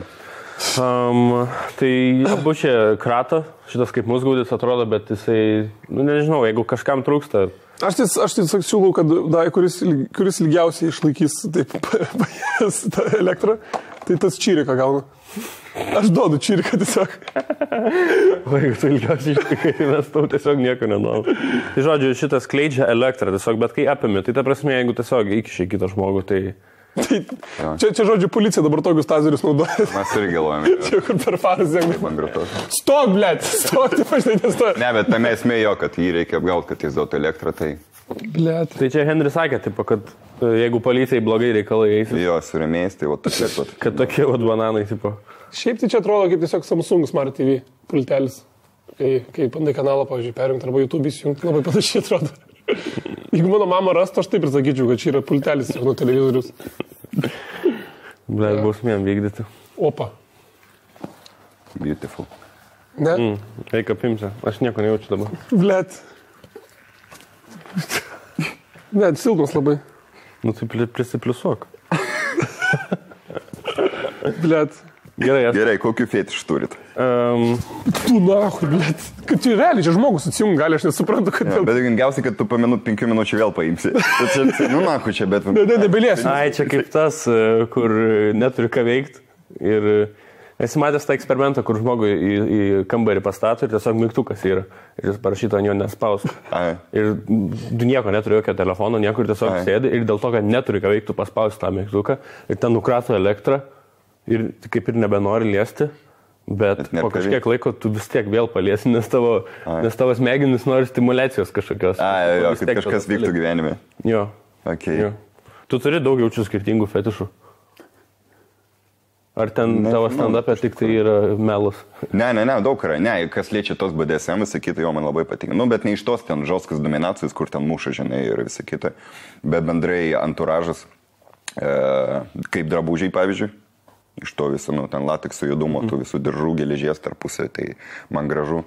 Tai abu čia krato, šitas kaip musgaudis atrodo, bet jisai, nežinau, jeigu kažkam trūksta. Aš tiesiog siūlau, kad kuris ilgiausiai išlaikys taip tą elektrą, tai tas čiriką gauna. Aš duodu čiriką tiesiog. O jeigu tu ilgiausiai išlaikai, tai mes tau tiesiog nieko nenuom. Tai žodžiu, šitas skleidžia elektrą tiesiog, bet kai apimi, tai ta prasme, jeigu tiesiog įkišai kitą žmogų, tai... Čia žodžiu, policija dabar tokius tazerius naudoja. Mes irgi galvojame. Čia kur per faras žengia. Stok, blėt, stok, taip aš nestoju. Ne, bet tame esmė jo, kad jį reikia apgauti, kad jis duotų elektrą, tai... Blėt. Tai čia Henry sakė, tipo, kad jeigu policijai blogai reikalai eisi. Jo, surėmės, tai va tokie pat. Kad tokie vat bananai, tipo. Šiaip tai čia atrodo kaip tiesiog Samsung Smart TV pultelis. Kai bandai kanalą, pavyzdžiui, perjungti arba YouTube įsijungti, labai panašiai atrodo. Jeigu mano mama rastų, aš taip ir sakyčiau, kad čia yra pultelis nuo televizorius. Blet, bausmėm vykdyti. Opa. Beautiful. Ne? Eik apimsi, aš nieko nejaučiu dabar. Blet. Ne, silpnas labai. Nu tai prisipliusuok. Blet. Gerai, kokiu fetišu turit? Tu nahui, blet. Kad čia realiai, čia žmogus atsijungi gali, aš nesuprantu, kad... Ja, bet gingiausiai, kad tu po 5 minučių vėl paimsi. Nu, nahui čia, bet... Nebeliesi. Ai, čia kaip tas, kur neturi ką veikti. Ir esi matęs tą eksperimentą, kur žmogui į kambarį pastato ir tiesiog mygtukas yra. Ir jis parašyto ant jo nespaus. Ir tu nieko neturi, jokio telefono, niekur tiesiog sėdi. Ir dėl to, kad neturi ką veikti, tu paspausi tą mygtuką. Ir ten nukrato elektrą. Ir kaip ir nebenori liesti, bet po kažkiek laiko tu vis tiek vėl paliesi, nes tavo smegenis nori stimulacijos kažkokios. Jo, kad kažkas vyktų gyvenime. Jo. Okay. Jo. Tu turi daug jaučių skirtingų fetišų. Ar ten tavo stand-up'e tik tai yra melas? Ne, daug yra. Ne, kas liečia tos BDSM, visą kitą, jo man labai patinka. Nu, bet ne iš tos ten žoskas dominacijos, kur ten muša, žinai, ir visą kitą. Bet bendrai anturažas, kaip drabužiai, pavyzdžiui. Iš to viso, ten latekso judumo, tų visų diržų, geležies tarpusai, tai man gražu.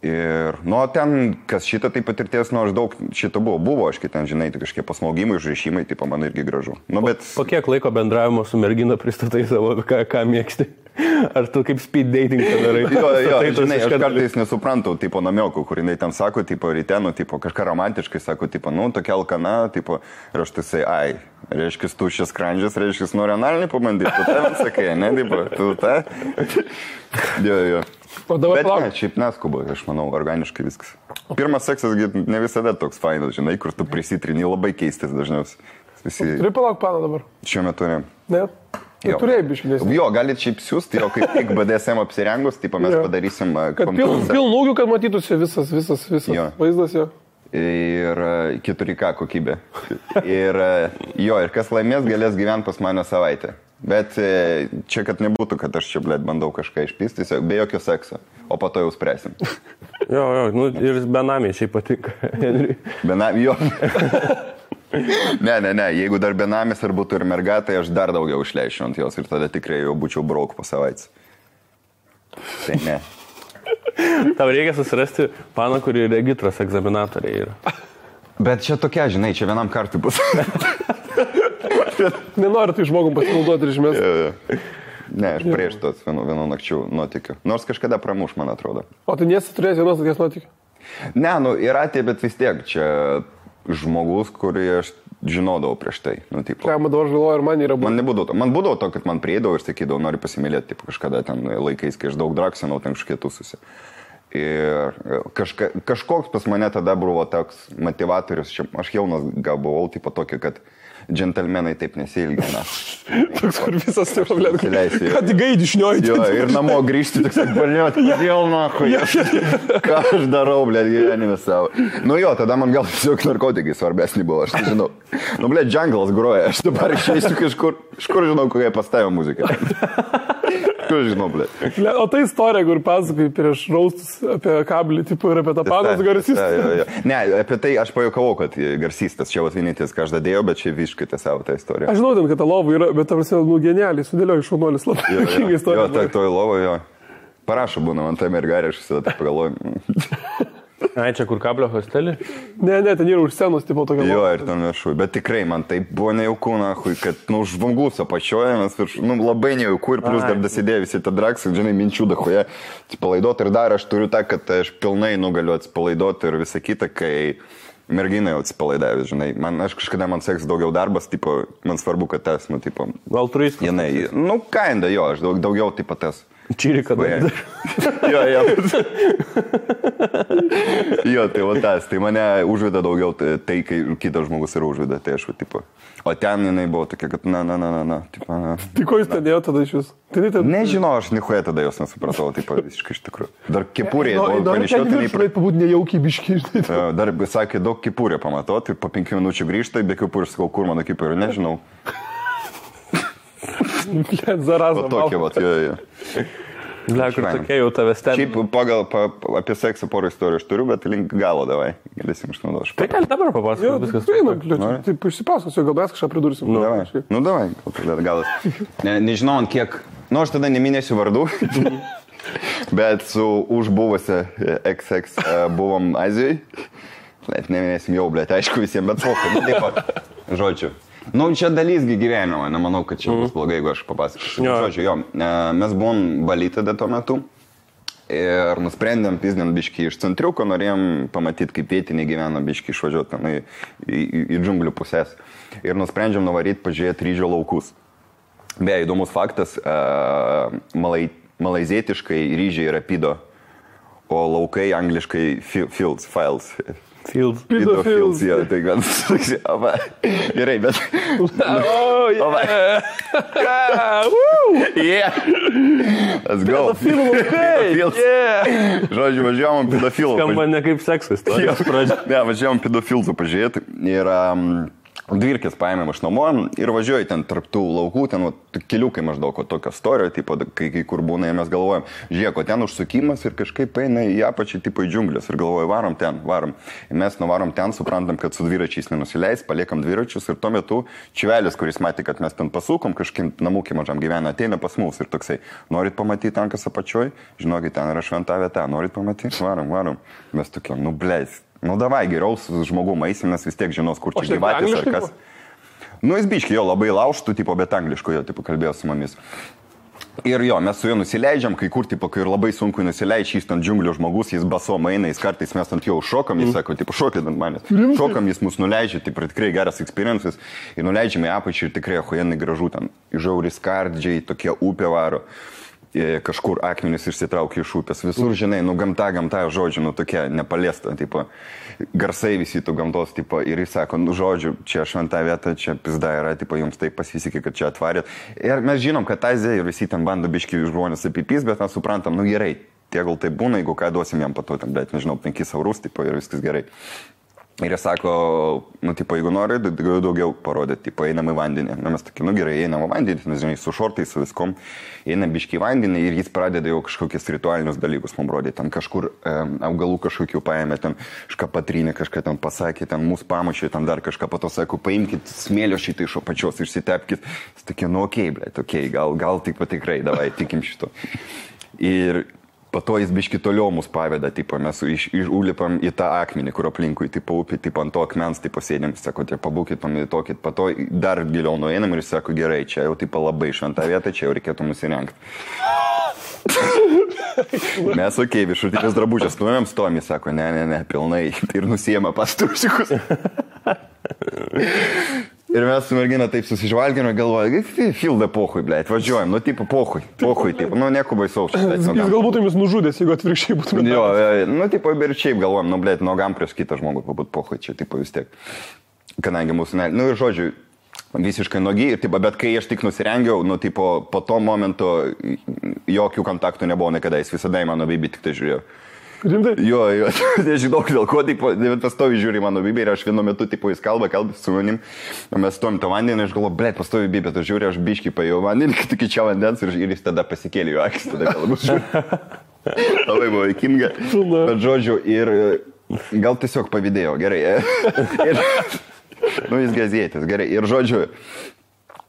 Ir, ten, kas šitą tai patirties, aš daug šito buvo, aš ten, žinai, tai kažkiek pasmaugimai, užrišimai, tai man irgi gražu. Bet... Po kiek laiko bendravimo su mergina pristatai savo, ką mėgsti? Ar tu kaip speed dating padarai? Jo, žinai, aš kartais nesuprantu, tipo namiokų, kur jinai ten sako, tipo rytenu, tipo kažką romantiškai, sako, tipo, tokia alkana, tipo, ir aš tai sai, reiškia, tuščias skrandžias, reiškia, nori analinį pabandyti, tu tą sakai, ne, tipo, tu tą? Jo. Bet ne, šiaip neskuba, aš manau, organiškai viskas. Pirmas seksas ne visada toks fainas, žinai, kur tu prisitrini, labai keistas dažniausiai. Turi palauk planą dabar? Šiuo metu ne. Ne? Turėjai biškinės. Jo, galit šiaip siūsti, jo kaip tik BDSM apsirengus, taip mes padarysim... Kad pilnūgių, kad matytųsi visas vaizdas jo. Ir 4K kokybė. Ir kas laimės, galės gyventi pas mane savaitę. Bet čia, kad nebūtų, kad aš čia, blėt, bandau kažką išpysti, be jokio sekso. O po to jau spręsim. Jo, ir benamiai šiaip patinka, Henry. Benamiai, jo. Ne, jeigu dar benamis ar būtų ir merga, tai aš dar daugiau išleičiau ant jos ir tada tikrai jau būčiau brauk po savaitės. Tai ne. Tau reikia susirasti paną, kuri regitros egzaminatoriai yra. Bet čia tokia, žinai, čia vienam kartui bus. Nenoriu tai žmogum pasinaudoti ir išmesti. Ne, aš prieš tos vienų nakčių nuotikių. Nors kažkada pramuš, man atrodo. O tu nesi turėjęs vienos tokias nuotikių? Ne, yra tie, bet vis tiek čia žmogus, kurį aš žinodavau prieš tai. Tipo. Ką, man dabar žaloju, ir man yra buvo. Man būdavo to, kad man prieidavo ir sakydavau, noriu pasimylėti, tipo, kažkada ten laikais, kai aš daug draksinau, ten kažkiek tūsusi. Ir kažkoks pas mane tada buvo toks motivatorius, aš jaunas gal buvau, tipo tokį, kad džentelmenai taip nesiilgina. Toks, kur visas taip pablėt, kad gaidį šnioji. Jo, ir namo grįžti, tik sakai, baliot, kodėl nahui. Ką aš darau, blėt, gyvenime savo. Nu jo, tada man gal tiesiog narkotikai svarbesnį buvo, aš tai žinau. Nu, blėt, džanglas groja, aš dabar išeisiu kažkur, žinau, kokie pastavė muziką. Kur žinau, blėt. O tai istorija, kur pasakai prieš raustus apie kablį, tipo, ir apie tą panos garsistą. Ne, apie tai aš pajokavau, kad garsistas čia vienintis, ką aš dadėjau, bet čia visiškai tiesiavo tą istoriją. Aš žinau, ten, kad ta lova yra, bet tam nu genialiai, sudėlioju šaunuolis labai juokinga istorija. Jo, toj lovo, jo. Parašo būna man tai mergarė, aš visada taip pagalvoju. Ai, čia kur kablio hostelį? Ne, ten yra už scenos, tipo tokia. Jo, ir ten viršui. Bet tikrai man tai buvo nejauku, nahui, kad, žvangus apačioje, mes viršui, labai nejauku ir plus dar dasidėjo visi tą draksą, žinai, minčių dahoje atsipalaidoti ir dar aš turiu tą, kad aš pilnai galiu atsipalaidoti ir visą kitą, kai merginai jau atsipalaidavęs, žinai. Aš kažkada man seks daugiau darbas, tipo, man svarbu, kad tas, tipo... Altruistas. Jinai, kinda, jo, aš daugiau, tipo, tas... Čyrika dar. Jo. Jo, tai va tas, tai mane užveda daugiau tai, kai kitas žmogus yra užveda, tai aš, tipo. O ten jinai buvo tokia, kad na, tipo, na. Tai ko jūs ten dėjo tada iš jūs? Nežinau, aš nichuoja tada jos nesupratau, tipo, visiškai iš tikrųjų. Dar kepurė, panašiau, tai neįprat. Pabūt nejaukiai biškiai, žinai. Dar sakė, daug kepurė pamato, tai po 5 minučių grįžta, be kepurė, sakau, kur mano kepurė, nežinau. Zarazą. O tokia, vat, jo. Lekur tokia jau tave stebi. Šiaip apie seksą porą istorijų aš turiu, bet link galo davai. Galėsim išnaudoti. Tai gali dabar papasakoti viskas. Taip, išsipasakosiu, gal mes kažką pridursim. Nu, davai, galas. Nežinau, ant kiek. Nu, aš tada neminėsiu vardų. Bet su užbuvusia XX buvom Azijai. Net neminėsim jau, blėt, aišku visiems, bet pokai. Taip pat. Žodžiu. Nu, čia dalysgi gyvenimo, nemanau, kad čia bus blogai, jeigu aš papasakosiu. Žodžiu, jo, mes buvom Bali tada tuo metu ir nusprendėm pizdėm biškį iš centriuko, norėjom pamatyti, kaip vietiniai gyvena biškį išvažiuoti į džunglių pusės. Ir nusprendžiam nuvaryti pažiūrėti ryžio laukus. Beje, įdomus faktas, malaizietiškai ryžiai yra pido, o laukai angliškai fields. Pido fields. Jo, tai gan susiava. Gerai, bet... Oh, yeah. Yeah. Let's go. Pedofilų. Yeah. Žodžiu, važiavom pedofilų. Skamba ne kaip seksas. Ne, važiavom pedofilų pažiūrėti. Ir dvirkės paėmėm iš namo ir važiuoju ten tarptų laukų, ten keliukai maždaug tokio storio, tipo, kai kur būna ir mes galvojam, žiūrėk, o ten užsukimas ir kažkaip eina į apačią, tipo į džiunglės ir galvoju, varom. Ir mes nuvarom ten, suprantam, kad su dviračiais nenusileis, paliekam dviračius ir tuo metu čiuvelis, kuris matė, kad mes ten pasukom, kažkaip namūkį mažam gyvena, ateina pas mus ir toksai, norit pamatyti tankas apačioj, žinokit, ten yra šventa vieta, norit pamatyti, varom. Mes tokie, nu bleis. Nu davai, geriau su žmogum eisim, nes vis tiek žinos, kur čia gyvatės ar kas. Nu jis biški jo labai laužtų, tipo, bet angliško jo, tipo, kalbėjo su mumis. Ir jo, mes su juo nusileidžiam, kai kur, tipo, kai ir labai sunku nusileidžiam, jis ten džiunglių žmogus, jis basom eina, jis kartais mes ant jo šokam, jis sako, tipo, šokit ant manęs. Šokam, jis mus nuleidžia, tipo, tikrai geras experiences. Ir nuleidžiame į apačią ir tikrai achujenai gražu ten. Žiauri skardžiai, tokie upė varo. Kažkur akmenis išsitraukia iš upės. Visur, žinai, nu gamta žodžiu, nu tokia nepaliesta, tipo, garsai visi tų gamtos, tipo, ir jis sako, nu žodžiu, čia šventa vieta, čia pizda yra, tipo, jums taip pasisekė, kad čia atvarėt. Ir mes žinom, kad Azija ir visi ten bando biški žmonės apipys, bet mes suprantam, nu gerai, tie gal tai būna, jeigu ką duosim jam pato, ten, bet nežinau, 5 eurus, tipo, ir viskas gerai. Ir jie sako, nu, tipo, jeigu nori, daugiau parodyti, tipo, einam į vandenį. Na, mes tokie, nu gerai, einam į vandenį, nes, žinai, su šortais, su viskom, einam biškai į vandenį ir jis pradeda jau kažkokius ritualinius dalykus man rodyti. Ten kažkur augalų kažkokių paėmė, ten kažką patrynė, kažką ten pasakė, ten mūsų pamušė, ten dar kažką, po to sako, paimkit smėlio šitą iš apačios, išsitepkit. Jis tokie, nu, okei, blėt, okei, gal tik patikrai, davai, tikim šito. Ir po to jis biški toliau mus paveda, tipo, mes užlipam į tą akmenį, kur aplinkui, tipo, upė, tipo, ant to akmens, tipo, sėdėm, sako, tie pabūkit, pamedituokit, po to dar giliau nueinam ir jis sako, gerai, čia jau, tipo, labai šventa vieta, čia jau reikėtų nusirengti. Mes, okei, viršutinės drabužės, nuėjom stom, jis sako, ne, pilnai, ir nusiema pastrusikus. Ir mes su mergina taip susižvalgėme, galvoju, filda pohui, blėt, važiuojam, nu, tipo, pohui, tipo, nu, nieko baisaus. Jis galbūt jumis nužudęs, jeigu atvirkščiai būtumėte. Jo, nu, tipo, ir šiaip galvojam, nu, blėt, nogam prieš kitą žmogų pabūt pohui, čia, tipo, vis tiek. Kadangi mūsų, nu, ir žodžiu, visiškai nogi, ir, tipo, bet kai aš tik nusirengiau, nu, tipo, po to momento jokių kontaktų nebuvo niekada, jis visada į mano bibį tik tai žiūrėjo. Rimtai? Jo, nežinau, dėl ko, tipo, pastovi žiūri mano bibį ir aš vienu metu, tipo, jis kalba su manim, o mes stovim tą vandenį ir aš galvoju, blėt, pastovi bibį, tu žiūri, aš biškį paėjau vandenį, kad tik čia vandens ir jis tada pasikėlė jo akis, tada galbūt žiūri. Labai buvo įkinga, bet žodžiu, ir gal tiesiog pavydėjo, gerai. Ir, nu, jis gazėtis, gerai, ir žodžiu,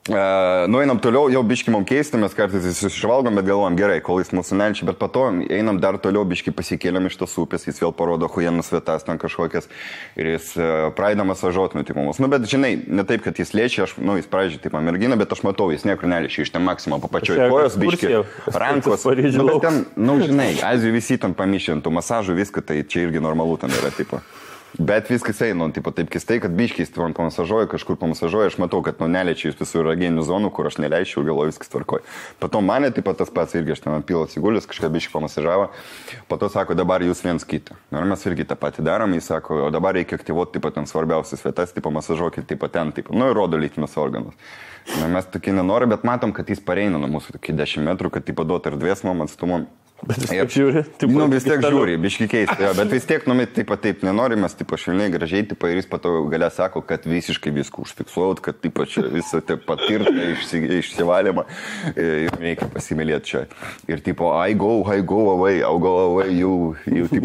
nueinam toliau, jau biški mum keisti, mes kartais susižvalgom, bet galvojam, gerai, kol jis mūsų nelčia, bet po to einam dar toliau, biški pasikėlėm iš tos upės, jis vėl parodo huienus vietas ten kažkokias ir jis pradeda masažuot, nu, tipo, mus. Nu, bet žinai, ne taip, kad jis liečia, aš, nu, jis pradžiai, tipo, mergina, bet aš matau, jis niekur neliečia, iš ten maksimum papačioj kojos, biški, rankos, nu, bet ten, nu, žinai, Azijų visi ten pamišintų masažų, viską, tai čia irgi normalu ten yra, tipo. Bet viskas eina, tipo, taip keistai, kad biškiais man pamasažuoja, kažkur pamasažuoja, aš matau, kad, nu, neliečia jūs visų erogenių zonų, kur aš neleičiau, galvoju, viskas tvarkoja. Pato mane, taip pat tas pats irgi, aš ten pilo atsigulęs, kažką biškį pamasažavo, pato sako, dabar jūs viens kitą. Ir mes irgi tą patį darom, jis sako, o dabar reikia aktyvuoti, taip pat ten svarbiausias vietas, taip pamasažuokit, taip pat ten, taip, nu, ir rodo lytinius organus. Na, mes tokie nenori, bet matom, kad jis pareina nuo mūsų tokį 10 metrų, kad, taip, duot erdvės mum atstumom. Bet vis tiek žiūri. Taip, nu, vis tiek žiūri, biški keista, bet vis tiek, nu, taip nenorimės, taip, švelniai, gražiai, taip, ir jis pato galia sako, kad visiškai viską užfiksuot, kad, taip, čia visą taip patirtą išsivalymą, reikia pasimylėti čia. Ir, tipo, I go away, I'll go away, you taip,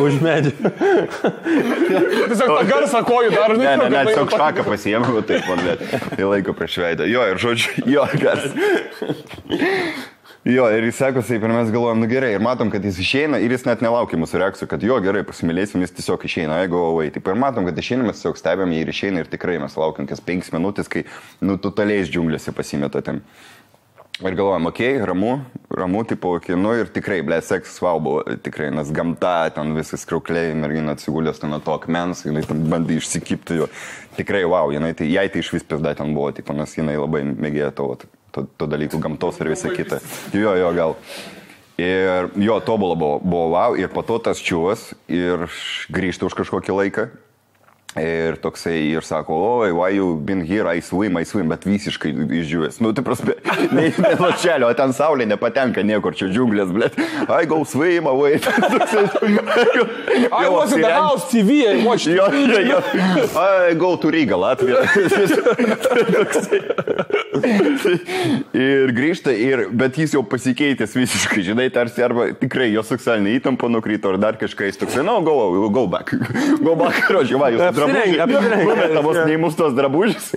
už medį. Tiesiog tą garsą kojų dar, ne, tiesiog šaką pasiėmė, taip, man net, į laiko prieš veidą. Jo, ir žodžiu, jo, garsą. Jo, ir jis sako, taip, ir mes galvojam, nu gerai, ir matom, kad jis išeina ir jis net nelaukia mūsų reakcijų, kad jo, gerai, pasimylėsim, jis tiesiog išeina, I go away. Taip, ir matom, kad išeina, mes tiesiog stebėm jį ir išeina ir tikrai mes laukiam kas 5 minutės, kai, nu, totaliais džiunglėse pasimeta ten. Ir galvojam, okei, ramu, tipo, okei, nu ir tikrai, blė, seksas wow buvo, tikrai, nes gamta, ten visas kraukliai, mergina atsigulės ten to akmens, jinai ten bandė išsikipti jo. Tikrai wow, jinai, tai, jai tai iš vis pizda ten buvo, tipo, nes jinai labai mėgėjo to dalykų, gamtos ir visą kitą. Jo, gal. Ir jo, tobulą buvo wow, ir po to tas čiūvas ir grįžta už kažkokį laiką. Ir toksai, ir sako, oi, why you been here, I swim, bet visiškai išdžiūvęs. Nu, tai prasme, ne lašelio, o ten saulė nepatenka niekur, čia džiunglės, blėt. I go swim away. I was in the house TV, I watched TV. I go to Riga, Latvija. Ir grįžta, bet jis jau pasikeitęs visiškai, žinai, tarsi arba tikrai jo seksualinė įtampa nukrito, ar dar kažką jis toksai, no, go back, rožiai, va, jūs numetamos neįmus tos drabužės.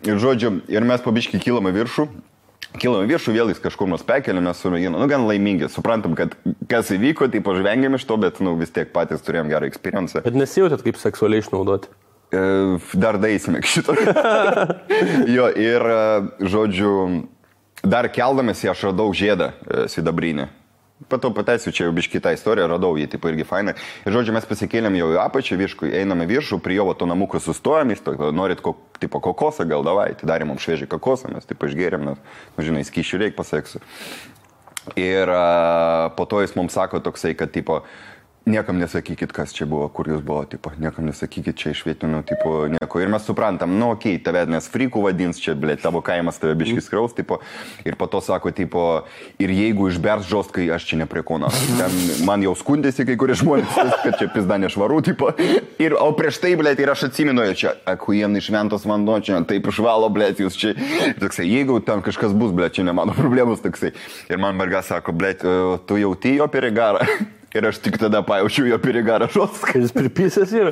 Ir žodžiu, ir mes pabiškai kilame viršų, vėl jis kažkur mus pekelė, mes su mergina, nu, gan laimingi, suprantam, kad kas įvyko, tai pažvengėm iš to, bet, nu, vis tiek patys turėjom gerą experience. Bet nesijautėt kaip seksualiai išnaudoti? Dar daeisime šito. Jo, ir, žodžiu, dar keldamėsi aš radau žiedą sidabrinį. Patau pateisiu, čia jau biški tą istoriją, radau jį, tipo, irgi fainai. Ir, žodžiu, mes pasikėlėm jau į apačią, einame viršų, prie jo to namuko sustojom, jis to, norit tipo kokosą, gal davai, tai darėm mums šviežiai kokosą, mes taip išgėrėm, nes, nu, žinai, skyšių reik paseksiu. Ir po to jis mums sako toksai, kad, tipo, Niekam nesakykit, kas čia buvo, kur jūs buvo, tipo, niekam nesakykit čia iš vietinių, tipo, nieko. Ir mes suprantam, nu, okei, tave nes frikų vadins, čia, blėt, tavo kaimas tave biškis kraus, tipo, ir po to sako, tipo, ir jeigu išbers žostkai, aš čia neprie kona. Ten man jau skundėsi kai kurie žmonės, kad čia pizda nešvaru, tipo, ir, o prieš tai, blėt, ir aš atsimenu, čia, akujem išventos vanduo, čia, taip išvalo, blėt, jūs čia, toksai, jeigu ten kažkas bus, blėt, čia ne mano problemos, toksai. Ir man merga sako, blėt, tu jauti jo perigarą. Ir aš tik tada pajaučiu jo perigarą žostką. Jis pripysęs yra.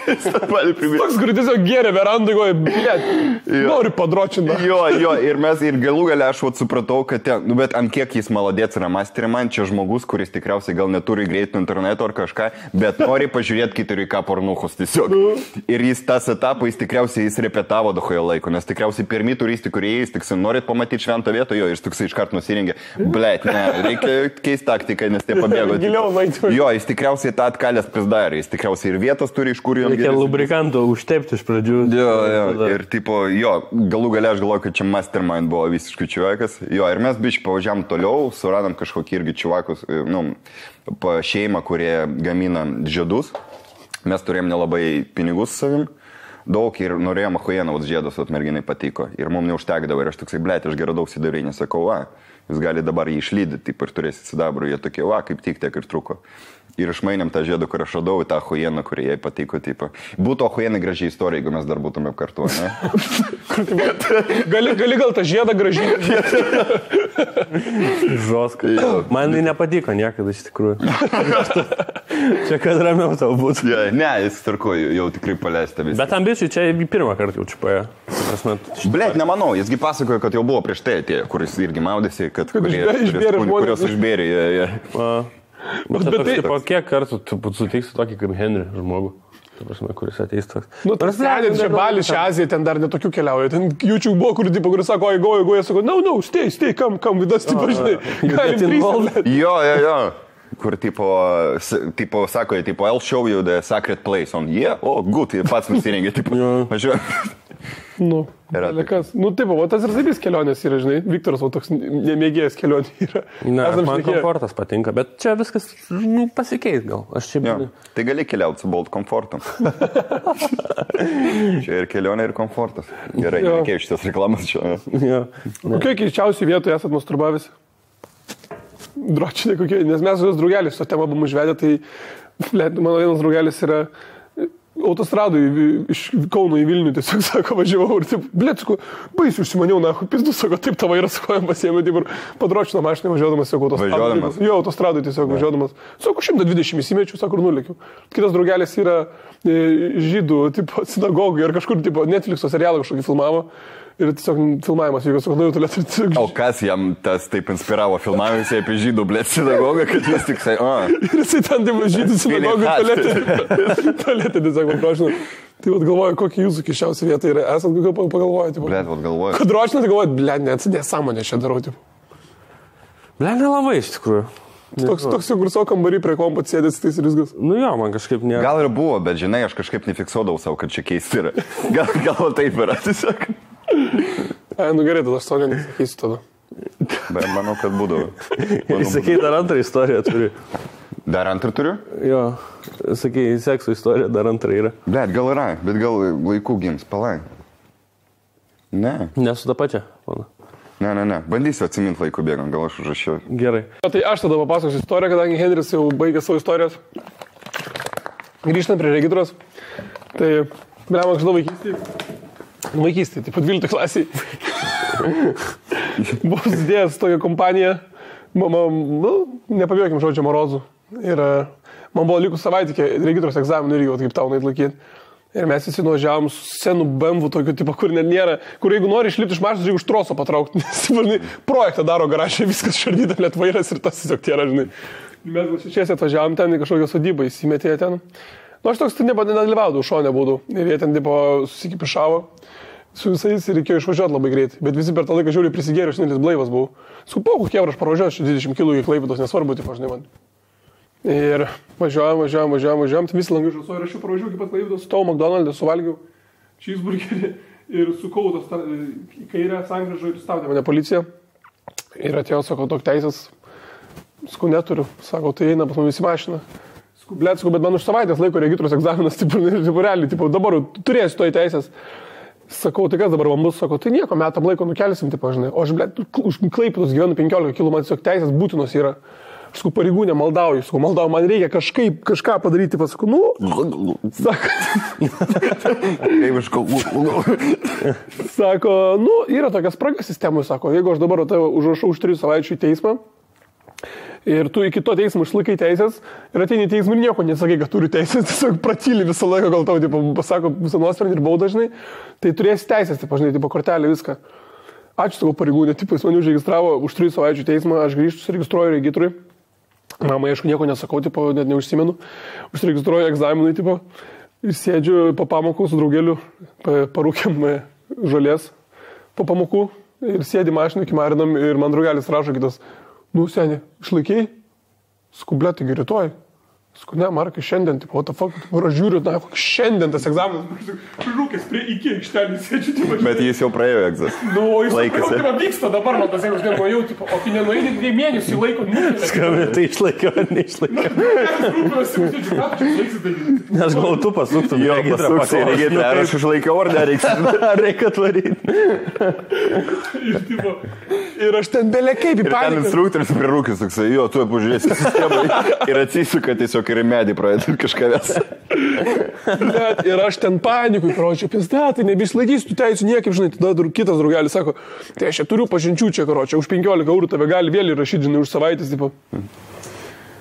Toks, kur tiesiog geria verandai, blėt, noriu padročinti. Jo, ir galų gale aš supratau, kad ten, nu bet ant kiek jis maladėts yra masterį, man čia žmogus, kuris tikriausiai gal neturi greitų interneto ar kažką, bet nori pažiūrėti kituri ką pornuchus tiesiog. Ir jis tas etapą, jis repetavo dahoje laiko, nes tikriausiai pirmi turistai, kurie jis tik norit pamatyti šventą vietą, jo, ir toksai iškart nusirengė, blėt, ne, reikia keisti taktiką, nes tie pabėgo. Jo, jis tikriausiai tą atkalęs pizdarė, jis tikriausiai ir vietos turi, iš kur jam reikia lubrikanto užtepti iš pradžių. Jo, ir tipo, jo, galų gale aš galvoju, kad čia mastermind buvo visiškai čiuvakas. Jo, ir mes biškai pavažiavam toliau, suradom kažkokį irgi čiuvakus, nu, šeimą, kurie gamina žiedus. Mes turėjom nelabai pinigus savim. Daug ir norėjom achujeną, žiedus, merginai patiko. Ir mums neužtekdavo. Ir aš toksai, blėt, aš gerai daug sidarinį sakau, jūs gali dabar jį išlydyti, taip ir turėsit sidabrų. Jie tokie, kaip tik tiek ir truko. Ir išmainėm tą žiedą, kur aš radau, į tą achujeną, kurie jai patiko. Taip. Būtų achujenai gražiai istorija, jeigu mes dar būtume kartu, ne? gali gal tą žiedą gražiai. Žoskai. Man tai nepatiko niekada iš tikrųjų. Čia kad ramiau tau būtų. Ne, jis tarko, jau tikrai paleista visą. Bet ambicijų čia pirmą kartą jau čiupaja. Blėt, nemanau, jisgi pasakojo, kad jau buvo prieš tai atėjo, kuris irgi maudėsi, kurios išbėrė. Bet tipo, kiek kartų tu sutiksi tokį kaip Henry žmogų? Kuris ateis toks. Nu, tas sėdint čia Balį, šią Aziją, ten dar netokių keliauja. Ten YouTube buvo, kuris sako, jie sako, no, stay, come with us, tipo, žinai. Jo. Kur tipo sako, I'll show you the sacred place on, good, pats nusirengė, tipo, važiuoju. Nu, kas. Nu, taip, o tas ir zaibys kelionės yra, žinai, Viktoras, o toks nemėgėjęs kelionė yra. Man komfortas patinka, bet čia viskas pasikeis gal. Tai gali keliauti su Bolt komfortu. Čia ir kelionė, ir komfortas. Gerai, nereikėjo šitas reklamas čia. Kokie keičiausiai vietoje esat masturbavęs? Dročinė kokie, nes mes jos draugelis, to temą buvom užvedę, tai mano vienas draugelis yra autostradui iš Kauno į Vilnių, tiesiog sako, važiavau ir taip, blėtsku, baisiu užsimaniau, pizdu, sako, taip tavo yra skojam pasiėmė, taip ir padročino mašiną važiuodamas, sako, autostradui. Jo, autostradui tiesiog važiuodamas. Sako, 120 įsimečiu, sako, ir nulėkiu. Kitas draugelis yra žydų, tipo, sinagogų ir kažkur, tipo, Netflix'o serialą kažkokį filmavo. Ir tiesiog filmavimas vyko, sako, nu jau tolėt. O kas jam tas taip inspiravo filmavimus apie žydų, blėt, sinagogą, kad jis tik sai, Ir jisai ten, taip, žydų sinagogų tolėtė, tiesiog paprašinu. Tai vat galvoju, kokia jūsų kiščiausia vieta yra. Esat kokio pagalvoju, tipo. Blėt, vat galvoju. Kad dročinas galvoju, blėt, nesąmonė čia darau, tipo. Blėt, nelabai iš tikrųjų. Toks jau kur savo kambarį prie kompo sėdės, tai ir viskas. Nu jo, man kažkaip ne. Gal ir buvo, bet žinai, aš kažkaip nefiksuodavau savo, kad čia keisti yra. Gal taip yra, tiesiog. Nu gerai, tada aš to nesakysiu tada. Bet manau, kad būdavo. Sakai, dar antrą istoriją turi. Dar antrą turiu? Jo, sakai, sekso istorija dar antrą yra. Bet gal yra, bet gal laikų gims, palai. Ne. Nesu tą pačią, pana. Ne. Bandysiu atsiminti laikų bėgant, gal aš užrašiau. Gerai. Tai aš tada papasakosiu istoriją, kadangi Henris jau baigė savo istorijas. Grįžtant prie regitros. Tai, blem, aš žinau vaikystėje, taip pat 12 klasiai. Buvo susidėjęs tokia kompanija, nepabėgėm žodžio Morozų. Ir man buvo likus savaitė iki regitros egzaminų irgi, kaip tau laikyti. Ir mes visi nuvažiavom su senu BMW tokiu tipo, kur net nėra, kur jeigu nori išlipti iš mašinos, reikia už troso patraukti. Nes projektą daro garažė, viskas šardyta, net vairas ir tas tiesiog tėra, žinai. Mes gal šešiesi atvažiavom ten į kažkokią sodybą, įsimetė ten. Nu, aš toks nedalyvaudavau, šonė būdų. Ir jie ten tipo susikipišavo su visais ir reikėjo išvažiuoti labai greitai. Bet visi per tą laiką žiūri prisigėrė, aš nelis blaivas buvau. Supau, kokie aš pravažiuosiu 20 km į Klaipėdos, nesvarbu, tipo, žinai man. Ir važiuojam, tai visi langai žusuoja ir aš jau pravažiuoju iki pat Klaipėdos, stovau McDonald'e, suvalgiau cheeseburgerį ir sukau tos į kairę sankryžą ir stabdė mane policija. Ir atėjo, sako, tok teisės, sakau, neturiu, sako, tai eina pas mumis į mašiną. Bet man už savaitės laiko regitros egzaminas, tipo, realiai, tipo, dabar turėsiu to į teisės. Sakau, tai kas dabar man bus, sakau, tai nieko, metam laiko nukelsim, tipo, žinai. O aš, už Klaipėdos gyvenu 15 km, man tiesiog teisės būtinos yra. Aš sakau, pareigūnė, maldauju, man reikia kažką padaryti, pasakau, sako, yra tokia spraga sistemų, sako, jeigu aš dabar užrašau už 3 savaičių į teismą, ir tu iki to teismo išlaikai teisės ir ateini į teismą ir nieko nesakai, kad turi teisės, tiesiog pratyli visą laiką, gal tau, tipo, pasako visą nuosprendį ir baudą, žinai, tai turėsi teisės, tipo, žinai, tipo, kortelė, viską. Ačiū savo pareigūnė, tipo, jis mane užregistravo už 3 savaičių teismą, aš grįžtu, suregistruoju regitrui. Mamai, aišku, nieko nesakau, tipo, net neužsimenu. Užsiregistruoju egzaminui, tipo, ir sėdžiu po pamokų su draugeliu, parūkiam žolės po pamokų ir sėdi mašinų, kimarinam ir man draugelis rašo kitas. Seni, išlaikiai? Skublė, taigi rytoj. Ne, Markai, šiandien, tipo, what the fuck, aš žiūriu, šiandien tas egzaminas, rūkės prie iki aikštelį sėdžiu, tipo. Bet jis jau praėjo egzaminą. Jis jau vyksta dabar, man tas jeigu aš nenuėjau, tipo, o kai nenuėjai 2 mėnesių laiko, Skambė, tai išlaikiau ar neišlaikiau. Nes gal tu pasuktum, jo, pasuksi į regitrą, ar aš išlaikiau ar nereiks. Ar reikia atvaryti. Ir aš ten belekaip į paniką. Ir ten instruktorius prie rūkės, toksai, jo, tu pažiūrėsi sistemą ir atsisuka tiesiog ir į medį pradėti kažką ves. Ir aš ten panikui, karočią, tai nebeišlaikysiu tų teisų niekaip, žinai, tada kitas draugelis sako, tai aš čia turiu pažinčių čia, karočią, už 15 eurų tave gali vėl įrašyti, žinai, už savaitės, tipo.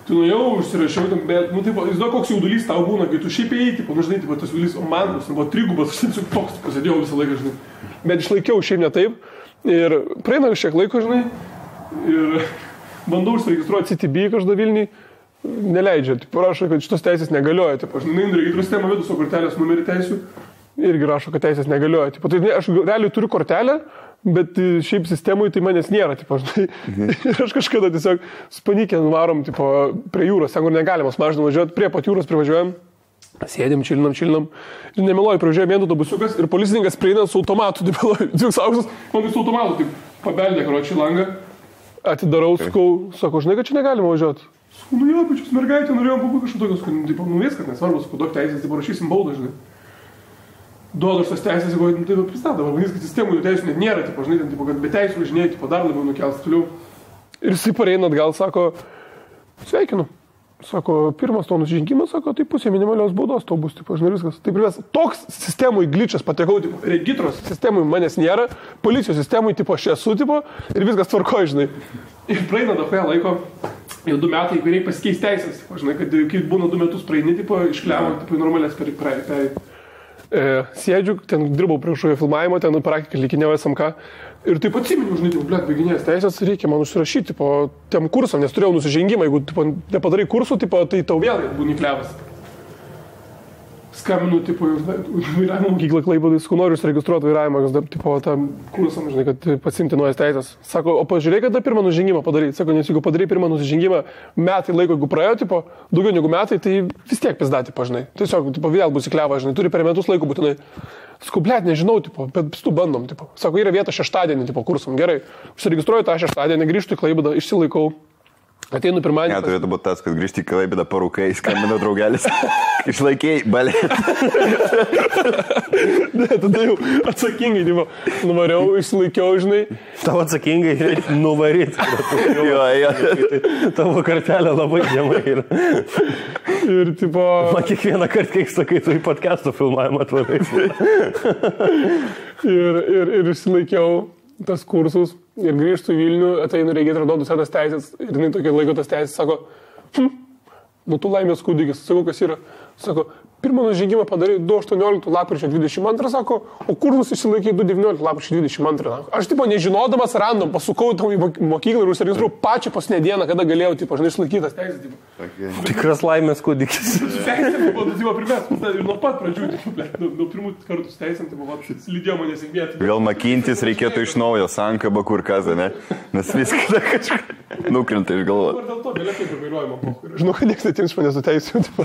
Tu jau užsirašiau, bet, tipo, žinau, koks jaudulys tau būna, kai tu šiaip ėjai, tipo, žinai, tipo, tas jaudulys, o man buvo 3, aš tiesiog toks pasėdėjau visą laiką, žinai. Bet išlaikiau šiaip ne taip ir praeina šiek laiko, žinai, ir bandau užsiregistruoti CTB kažkada Vilniui. Neleidžia, tipo, rašo, kad šitos teisės negalioja, tipo, aš nueinu regitrų sistemą, vedu savo kortelės numerį teisių, irgi rašo, kad teisės negalioja, tipo, tai aš realiai turiu kortelę, bet šiaip sistemui tai manęs nėra, tipo, žinai, ir aš kažkada tiesiog spanikė nuvarom, tipo, prie jūros, ten kur negalimas mažinam važiuoti, prie pat jūros privažiuojam, sėdim, čilinam, ir nemeluoju, privažiuoja vien autobusiukas ir policininkas prieina su automatu, tipo, dviks aukštas, man su automatu, taip, pabeldė, karočią langą, atidarau, sakau, žinai, kad čia negalima važiuoti. Jo, pačius mergaitė, norėjom pabūti kažką tokios, tipo, viskas nesvarbu, sakau, duok teisės, tipo, rašysim baudą, žinai. Duodu aš tas teisės, jeigu, tai pristatą, vadinasi, kad sistemų jų teisų net nėra, tipo, žinai, ten, tipo, kad be teisų važinėjai, tipo, dar labiau nukels toliau. Ir jisai pareina atgal, sako, sveikinu. Sako, pirmas to nusižengimas, sako, tai pusė minimalios baudos tau bus, tipo, žinai, viskas. Taip ir vis, toks sistemui glitchas patekau, tipo, regitros sistemui manęs nėra, policijos sistemui, tipo, aš esu, tipo, ir viskas tvarkoja, žinai. Ir praeina dahoje laiko, jau 2 metai, kai reikia pasikeis teisės, tipo, žinai, kad kai būna 2 metus praeini, tipo, iškliavo, tipo, normalės per sėdžiu, ten dirbau prie kažkokio filmavimo, ten praktikai likinėjau SMK. Ir taip atsiminiau, žinai, blėt, baiginės teisės, reikia man užsirašyti, tipo, tiem kursam, nes turėjau nusižengimą, jeigu, tipo, nepadarai kursų, tipo, tai tau vėl būni klevas. Skambinu, tipo, vairavimo mokyklą Klaipėdai, sakau, noriu užsiregistruoti vairavimą, tipo, tam kursam, žinai, kad pasimti naujas teisės. Sako, o pažiūrėk, kada pirmą nusižengimą padaryti. Sako, nes jeigu padarai pirmą nusižengimą, metai laiko, jeigu praėjo, tipo, daugiau negu metai, tai vis tiek pizdatį, žinai. Tiesiog, tipo, vėl bus įkleva, žinai, turi per metus laiko būtinai. Sakau, blėt, nežinau, tipo, bet tu bandom, tipo. Sako, yra vieta šeštadienį, tipo, kursam, gerai. Užsiregistruoju tą šeštadienį, grįžtu į Klaipėdą, išsilaikau. Ateinu pirmadienį. Ne, turėtų būti tas, kad grįžti į Klaipėdą parūkai, skambina draugelis. Išlaikiai, balė. Ne, tada jau atsakingai, tipo, nuvariau, išsilaikiau, žinai. Tavo atsakingai nuvaryt. Jo. Tavo kartelė labai žemai yra. Ir, tipo... Man kiekvieną kartą, kai sakai, tu į podcast'o filmavimą atvarai. Ir išsilaikiau tas kursus ir grįžtu į Vilnių, ateinu regitrą, duodu senas teisės ir jinai tokia laiko tas teisės, sako, tu laimės kūdikis, sakau, kas yra, sako, pirmą nužengimą padarai 2.18 lapkričio 22, sako, o kursus išsilaikai 2.19 lapkričio 22. Aš, tipo, nežinodamas random, pasukau tau į mokyklą ir užsiregistruoju pačią paskutinę dieną, kada galėjau, tipo, žinai, išlaikytas teisės, tipo. Okay. Tikras laimės kūdikis. Teisės, tipo, primės, ir nuo pat pradžių, tipo, nuo pirmų kartų teisėm, tipo, lydėjo mane sėkmėti. Vėl makintis reikėtų iš naujo, sankaba kur kas, ne? Nes viską kažkaip nukrenta iš galvos. Dėl to vėliau kaip ir vairuojama, po. Žinau, kad niekas netims iš manęs su teisėm, tipo.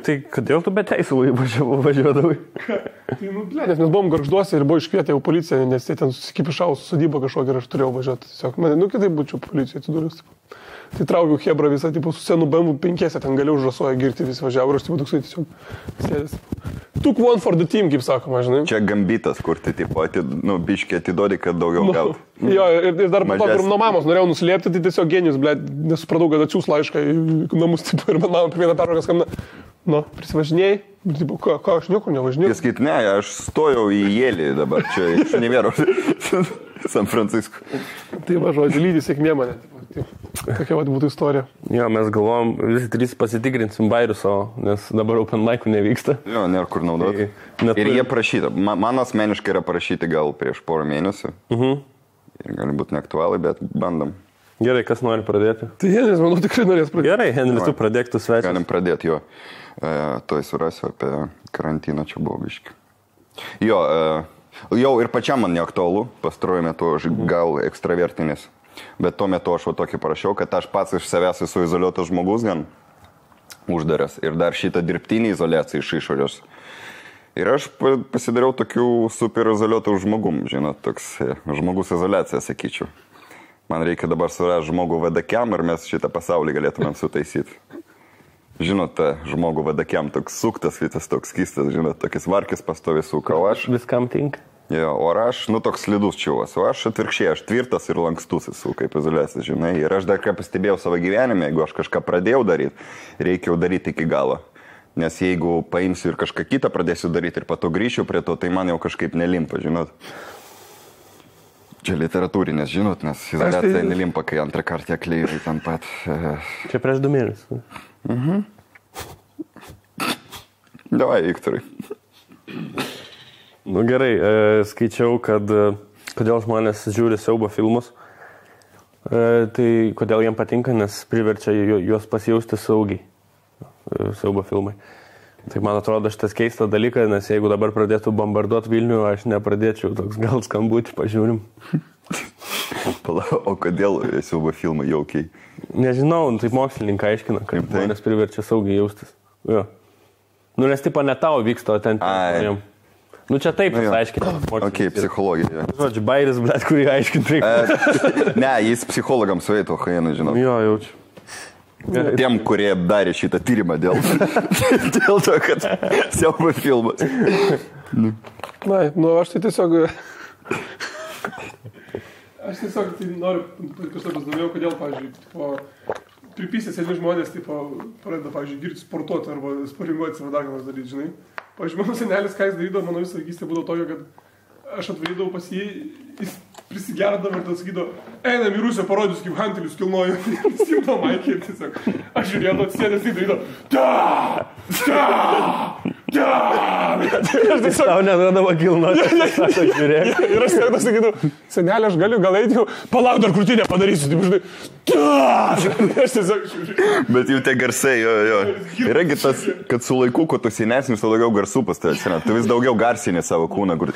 Tai kodėl tu be teisų važiuodavai? Tai, nes mes buvom Gargžduose ir buvo iškvietę jau policiją, nes jie ten susikipišavo su sodyba kažkokia ir aš turėjau važiuoti. Tiesiog, kitaip būčiau policijoje atsidūręs. Tai traukiau Hebrą visą, tipo, su senu BMW 5, ten galiu užrasoja girti, visi važiavo ir aš tipo toksai tiesiog sėdės. Took one for the team, kaip sakoma, žinai. Čia gambitas, kur tai tipo, biškiai atidodi, kad daugiau gautų. Jo, ir dar po to, nuo mamos norėjau nuslėpti, tai tiesiog genijus, blėt, nesupratau, kad atsiūs laišką į namus, tipo, ir man mama per vieną pertrauką skambina. Nu, prisivažinėjai, tipo, ką aš niekur nevažinėjau. Jis skait, ne, aš stojau į Jėlį dabar, čia iš Univero, San Francisco. Tai va, žodžiu, lydį sėkmė mane. Tokia vat būtų istorija. Jo, mes galvom, visi trys pasitikrinsim bairius savo, nes dabar open mic'ų nevyksta. Jo, nėra kur naudoti. Ir jie prašyta. Man asmeniškai yra prašyti gal prieš porą mėnesių. Ir gali būti neaktualai, bet bandom. Gerai, kas nori pradėti? Tai Henris, manau, tikrai norės pradėti. Gerai, Henris, tu pradėk tu svečias. Galim pradėti, jo. Tuoj surasiu apie karantiną, čia buvo biški. Jo, jau ir pačiam man neaktualu, pastaruoju metu aš gal ekstravertinis. Bet tuo metu aš tokį parašiau, kad aš pats iš savęs esu izoliuotas žmogus gan uždaras. Ir dar šitą dirbtinį izoliaciją iš išorės. Ir aš pasidariau tokių super izoliuotų žmogum, žinot, toks žmogus izoliacija, sakyčiau. Man reikia dabar surasti žmogų vadakiam ir mes šitą pasaulį galėtumėm sutaisyti. Žinot, žmogų vadakiam toks suktas, visas toks skystas, žinot, tokis varkis pastovi suka, o aš... Viskam tinka. Jo, o aš, toks slidus čiuvas, o aš atvirkščiai, aš tvirtas ir lankstus esu, kaip izoliacija, žinai. Ir aš dar ką pastebėjau savo gyvenime, jeigu aš kažką pradėjau daryti, reikia jau daryti iki galo. Nes jeigu paimsiu ir kažką kitą pradėsiu daryti ir po to grįšiu prie to, tai man jau kažkaip nelimpa, žinot. Čia literatūrinės, žinot, nes izoliacija nelimpa, kai antrą kartą akliai ten pat. Čia prieš 2 mėnesius. Davai, Viktorai. Nu gerai, skaičiau, kad kodėl žmonės žiūri siaubo filmus. Tai kodėl jiem patinka, nes priverčia juos pasijausti saugiai. Siaubo filmai. Tai man atrodo šitas keistas dalykas, nes jeigu dabar pradėtų bombarduoti Vilnių, aš nepradėčiau, toks gal skambutį pažiūrim. O kodėl siaubo filmai jaukiai? Nežinau, taip mokslininkai aiškina, kad žmonės priverčia saugiai jaustis. Jo. Nu, nes tipo ne tau vyksta, o ten žmonėm. Nu, čia taip jis aiškina. Ok, psichologija. Žodžiu, bairis, blėt, kurį aiškinti reikia. Ne, jis psichologams veito, Hainai, žinau. Jo, jaučiu. Tiem, kurie darė šitą tyrimą dėl to, kad siaubo filmas. Na, nu aš tai tiesiog... Aš tiesiog tai noriu kažką pasidomėjau, kodėl, pavyzdžiui, pripysės sėdė žmonės, pradeda, pavyzdžiui, girti sportuoti arba sparinguoti savo dar ką nors daryti, žinai. Pavyzdžiui, mano senelis, ką jis darydavo, mano visą vaikystę būdavo tokio, kad aš atvarydavau pas jį, jis prisigerdavo ir tas sakydavo, einam į Rusiją, parodys, kaip hantelius kilnojo. Ir simto Maikį ir tiesiog, aš žiūrėjau, atsėdęs, tai darydavo, Aš tau nedodavo kilnoti, sako, žiūrėk. Ir aš tiesiog sakydavau, senelė, aš galiu, gal eiti jau, palauk dar krūtinę padarysiu, taip žinai. Aš tiesiog žiūrėjau. Bet jau tie garsai, jo. Yragi tas, kad su laiku, kuo tu senesnis, tu daugiau garsų pas tai atsiranda. Tu vis daugiau garsinė savo kūną, kur...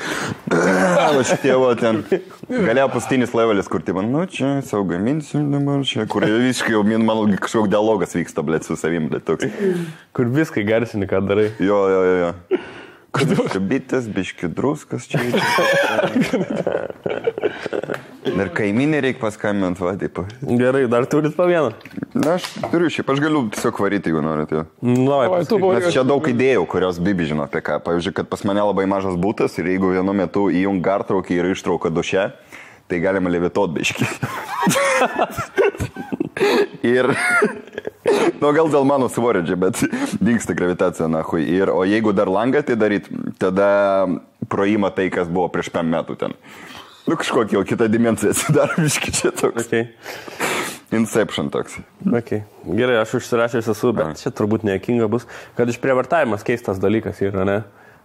Šitie ten... Galėjo pastinis levelis, kur tai man, nu čia, savo gaminsiu dabar čia, kur visiškai jau, man kažkoks dialogas vyksta, blėt, su savim, blėt, toks. Kur viskai garsini, ką darai. Jo. Biški bitas, biški druskas čia. Dar kaiminė reikia paskambinti, va, taip. Gerai, dar turit po vieną. Na, aš turiu šiaip, aš galiu tiesiog varyti, jeigu norit, jo. Nes čia daug idėjų, kurios Bibi žino apie ką. Pavyzdžiui, kad pas mane labai mažas būtas ir jeigu vienu metu įjung gartraukį ir ištrauką duše, tai galima levituot biški. Ir, nu gal dėl mano svorio čia, bet dingsta gravitacija, nahui. O jeigu dar langą tai daryt, tada proima tai, kas buvo prieš 5 metų ten. Nu kažkokia jau kita dimensija atsidaro biški čia toks. Okay. Inception toks. Okay. Gerai, aš užsirašęs esu, bet čia turbūt nejuokinga bus, kad išprievartavimas keistas dalykas yra, ne?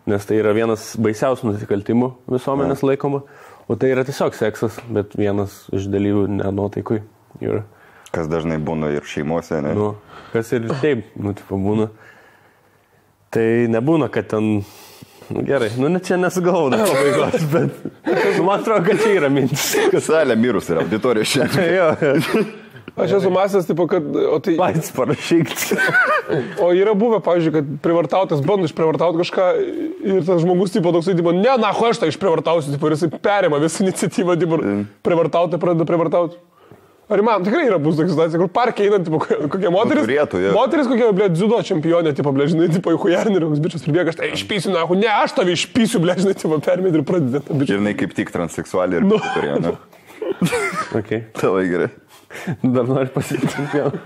Nes tai yra vienas baisiausių nusikaltimų visuomenės laikoma, o tai yra tiesiog seksas, bet vienas iš dalyvių nenuotaikui yra. Kas dažnai būna ir šeimose, ne? Nu, kas ir taip, tipo būna. Tai nebūna, kad ten... Nu, gerai, nu čia nesugalvau pabaigos, bet man atrodo, kad čia yra mintis. Salė mirus yra, auditorija šiandien. Jo. Aš esu masęs, tipo, kad... Pats parašyk. O yra buvę, pavyzdžiui, kad privartautas bando išprivartauti kažką ir tas žmogus, tipo, toksai, tipo, ne, aš tą išprivartausiu, tipo, ir jisai perima visą iniciatyvą, tipo, privartauti, pradeda privartauti. Ar man tikrai yra bus tokia situacija, kur parke einant, tipo, kokia moteris, turėtų, jo. moteris kokia, blė, dziudo čempionė, tipo, blė, žinai, tipo, į hujarnį, ir koks bičias pribėga, aš tai išpysiu, na, ne, aš tave išpysiu, blė, žinai, tipo, permėt ir pradedė tą bičią. Ir jinai kaip tik transseksualiai ir turėjo, ne? Okay. Tavai gerai. Dar noriu pasakyti čempioną.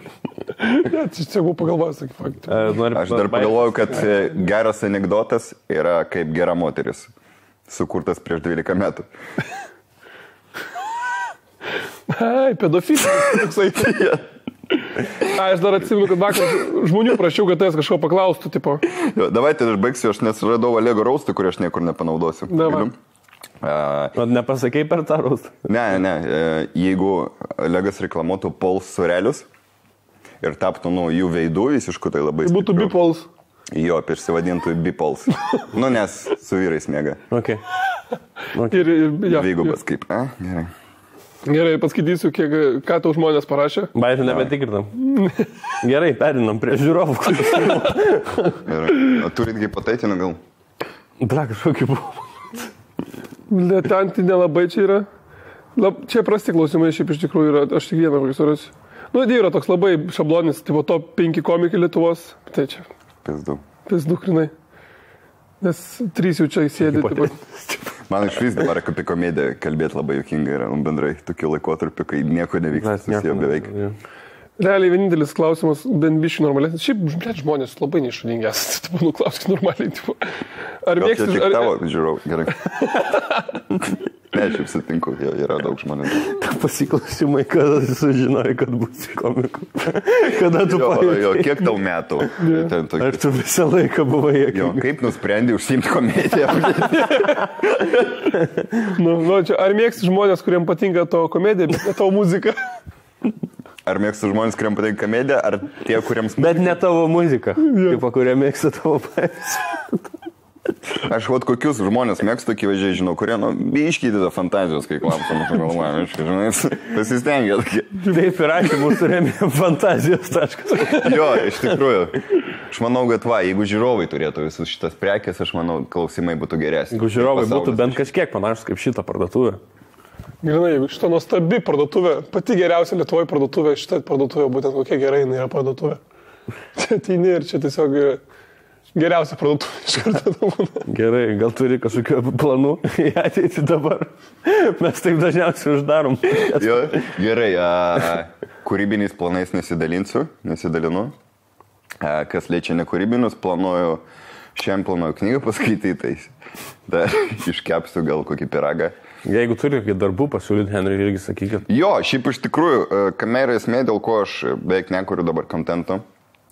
Ne, čia buvau pagalvojęs, tokį faktą. Aš dar pagalvoju, kad geras anekdotas yra kaip gera moteris, sukurtas prieš 12 metų. Ai, pedofilas, toksai. Aš dar atsimenu, kad vakar žmonių prašiau, kad tas kažko paklaustų, tipo. Jo, davai, tai aš baigsiu, aš nesuradau Olego raustą, kurį aš niekur nepanaudosiu. Davai. O nepasakei per tą raustą? Ne, jeigu Olegas reklamuotų Pols surelius ir taptų, jų veidų visiškų, tai labai Tai būtų stipriu. bipols. Jo, išsivadintų bipols. Nes su vyrais mėga. Okay. Ir ja, Dvigubas kaip, gerai. Gerai, paskaitysiu, ką tau žmonės parašė. Bairių nebetikrinam. Gerai, perinam prie žiūrovų. Gerai. O turit hipoteitinų gal? Bla, kažkokį buvo. Ten tai nelabai čia yra. Čia prasti klausimai šiaip iš tikrųjų yra. Aš tik vieną kokį surasiu. Yra toks labai šablonis, tipo top 5 komikai Lietuvos. Tai čia. Pizdu, krinai. Nes 3 jau čia įsėdė. Man iš vis dabar apie komediją kalbėti labai juokinga yra, bendrai tokiu laikotarpiu, kai nieko nevyksta, susiję beveik. Realiai vienintelis klausimas, bent biškai normalesnis. Šiaip žmonės labai neišradingi esate, klauskit normaliai. Ar mėgsti... Čia tik tavo, žiūrau, gerai. Ne, šiaip sutinku, yra daug žmonių. Pasiklausimai, kada sužinojai, kad būsi komiku. Kada tu pajutei? Kiek tau metų? Ar tu visą laiką buvai juokingas? Kaip nusprendai užsiimti komediją? Čia, ar mėgsti žmonės, kuriems patinka tavo komedija, bet ne tavo muzika? Ar mėgsti žmonės, kuriems patinka komedija, ar tie, kuriems... Bet ne tavo muzika, kaip kurie mėgsta tavo pavyzdžių. Aš kokius žmonės mėgstu, akivaizdžiai žinau, kurie, biškydė fantazijos, kai klausom, žinai, pasistengia. Taip ir ačiū, mūsų remė fantazijos taškas. Jo, iš tikrųjų. Aš manau, kad jeigu žiūrovai turėtų visus šitas prekės, aš manau, klausimai būtų geresni. Jeigu žiūrovai būtų bent kažkiek panašus kaip šitą parduotuvę. Grinai, jeigu šitą nuostabi parduotuvė, pati geriausia Lietuvoje parduotuvė, šitą parduotuvę, būtent kokia gerai jinai yra parduotuvė. Čia ateini ir čia tiesiog geriausia parduotuvė iš karto. Gerai, gal turi kažkokių planų į ateitį dabar? Mes taip dažniausiai uždarom. Jo, gerai, kūrybiniais planais nesidalinu. Kas liečia nekūrybinius, šiandien planuoju knygą paskaityti, dar iškepsiu gal kokį piragą. Jeigu turi kokį darbų pasiūlyti, Henry, irgi sakykit. Jo, šiaip iš tikrųjų, kamera esmė, dėl ko aš beveik nekuriu dabar kontento.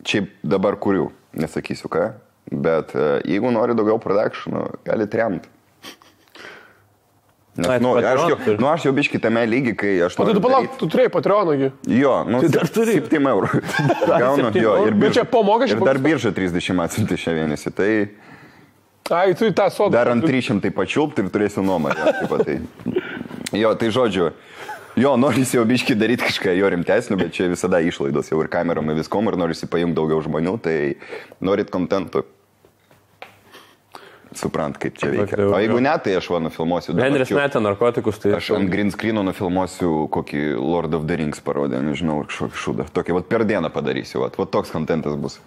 Šiaip dabar kuriu, nesakysiu ką, bet jeigu nori daugiau produkcijų, gali remti. Nes, aš jau biškį tame lygi, kai aš... O tai tu palauk, tu turėjai Patreonągi. Jo, tai dar turi 7 eurų. Gaunu, jo, ir čia po mokesčių. Ir dar birža 30 atsiunti šią mėnesį, tai... Ai, tu į tą sodą. Dar ant 300 pačiulpti ir turėsiu nuomą. Jo, tai žodžiu, jo, norisi jau biškį daryti kažką jo rimtesnio, bet čia visada išlaidos jau ir kamerom ir viskom, ir norisi paimti daugiau žmonių, tai norit kontentų. Suprant, kaip čia veikia. O jeigu ne, tai aš nufilmuosiu. Henris metė narkotikus, tai... Aš ant green screeno nufilmuosiu kokį Lord of the Rings parodė, nežinau, kažkokį šūdą. Tokį, per dieną padarysiu, toks kontentas bus.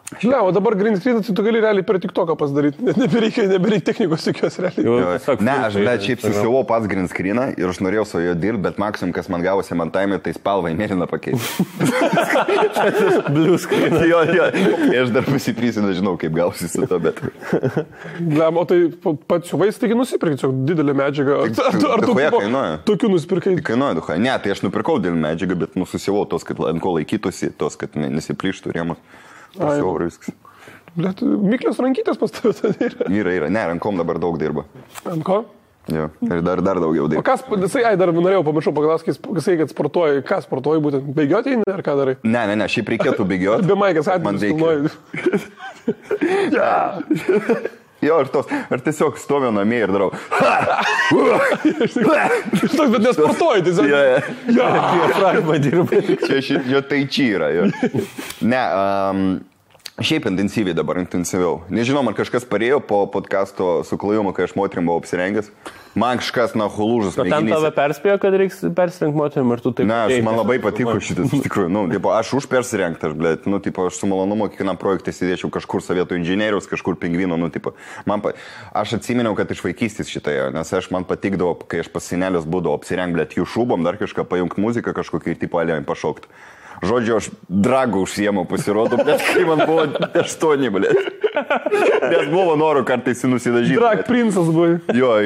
Žinau, o dabar green screen, tai tu gali realiai per TikToką pasidaryti, net nebereikia technikos jokios realiai. Ne, aš šiaip susiuvau pats green screeną ir aš norėjau su jo dirbti, bet maksimum, kas man gavosi man taimė, tai spalvą į mėlyną pakeisti. Blue screen. Jo, aš dar pasitrysiu, nežinau, kaip gausi su to, bet... O tai pats siuvais, taigi nusipirkai, čia didelė medžiaga. Ar tu tokių nusipirkai? Kainuoja, duha. Ne, tai aš nupirkau didelį medžiagą, bet susiuvau tos, kad ant ko laikytųsi, tos, kad nesiplyštų rėmus. Pasiaurų viskas. Blet, Miklios rankytės pas tavę yra? Yra. Ne, rankom dabar daug dirba. Ant ko? Jo, ir dar daugiau dirba. O kas, dar norėjau pamiršau paklausti, kad sportuoji. Ką sportuoji būtent? Bėgioti eini ar ką darai? Ne, šiaip reikėtų bėgioti. Be maikės atveju filmuoji. Jo, ar tiesiog stoviu namie ir darau. Bet nesportuoji, tiesiog. Diafragma dirba. Jo, tai čia yra. Ne, Šiaip intensyviai dabar, intensyviau. Nežinau, man kažkas parėjo po podcasto su Klajumu, kai aš moterim buvau apsirengęs. Man kažkas, na, hulūžas. O ten tave perspėjo, kad reiks persirengti moterim ir tu taip... Ne, man labai patiko šitas, iš tikrųjų. Nu, tipo, aš už persirengti, aš su malonumu kiekvienam projektui sėdėčiau kažkur Sovietų inžinieriaus, kažkur pingvino, aš atsiminiau, kad iš vaikystės šitąją, nes man patikdavo, kai aš pas senelius būdavau apsirengti, jų šūbom, dar kažką pajungti muziką kažkokį ir tipo alėjai pašaukti. Žodžiu, aš dragų užsiemu pasirodo, bet kai man buvo 8, blėt. Nes buvo noro kartais nusidažyti. Drag princas buvo. Jo.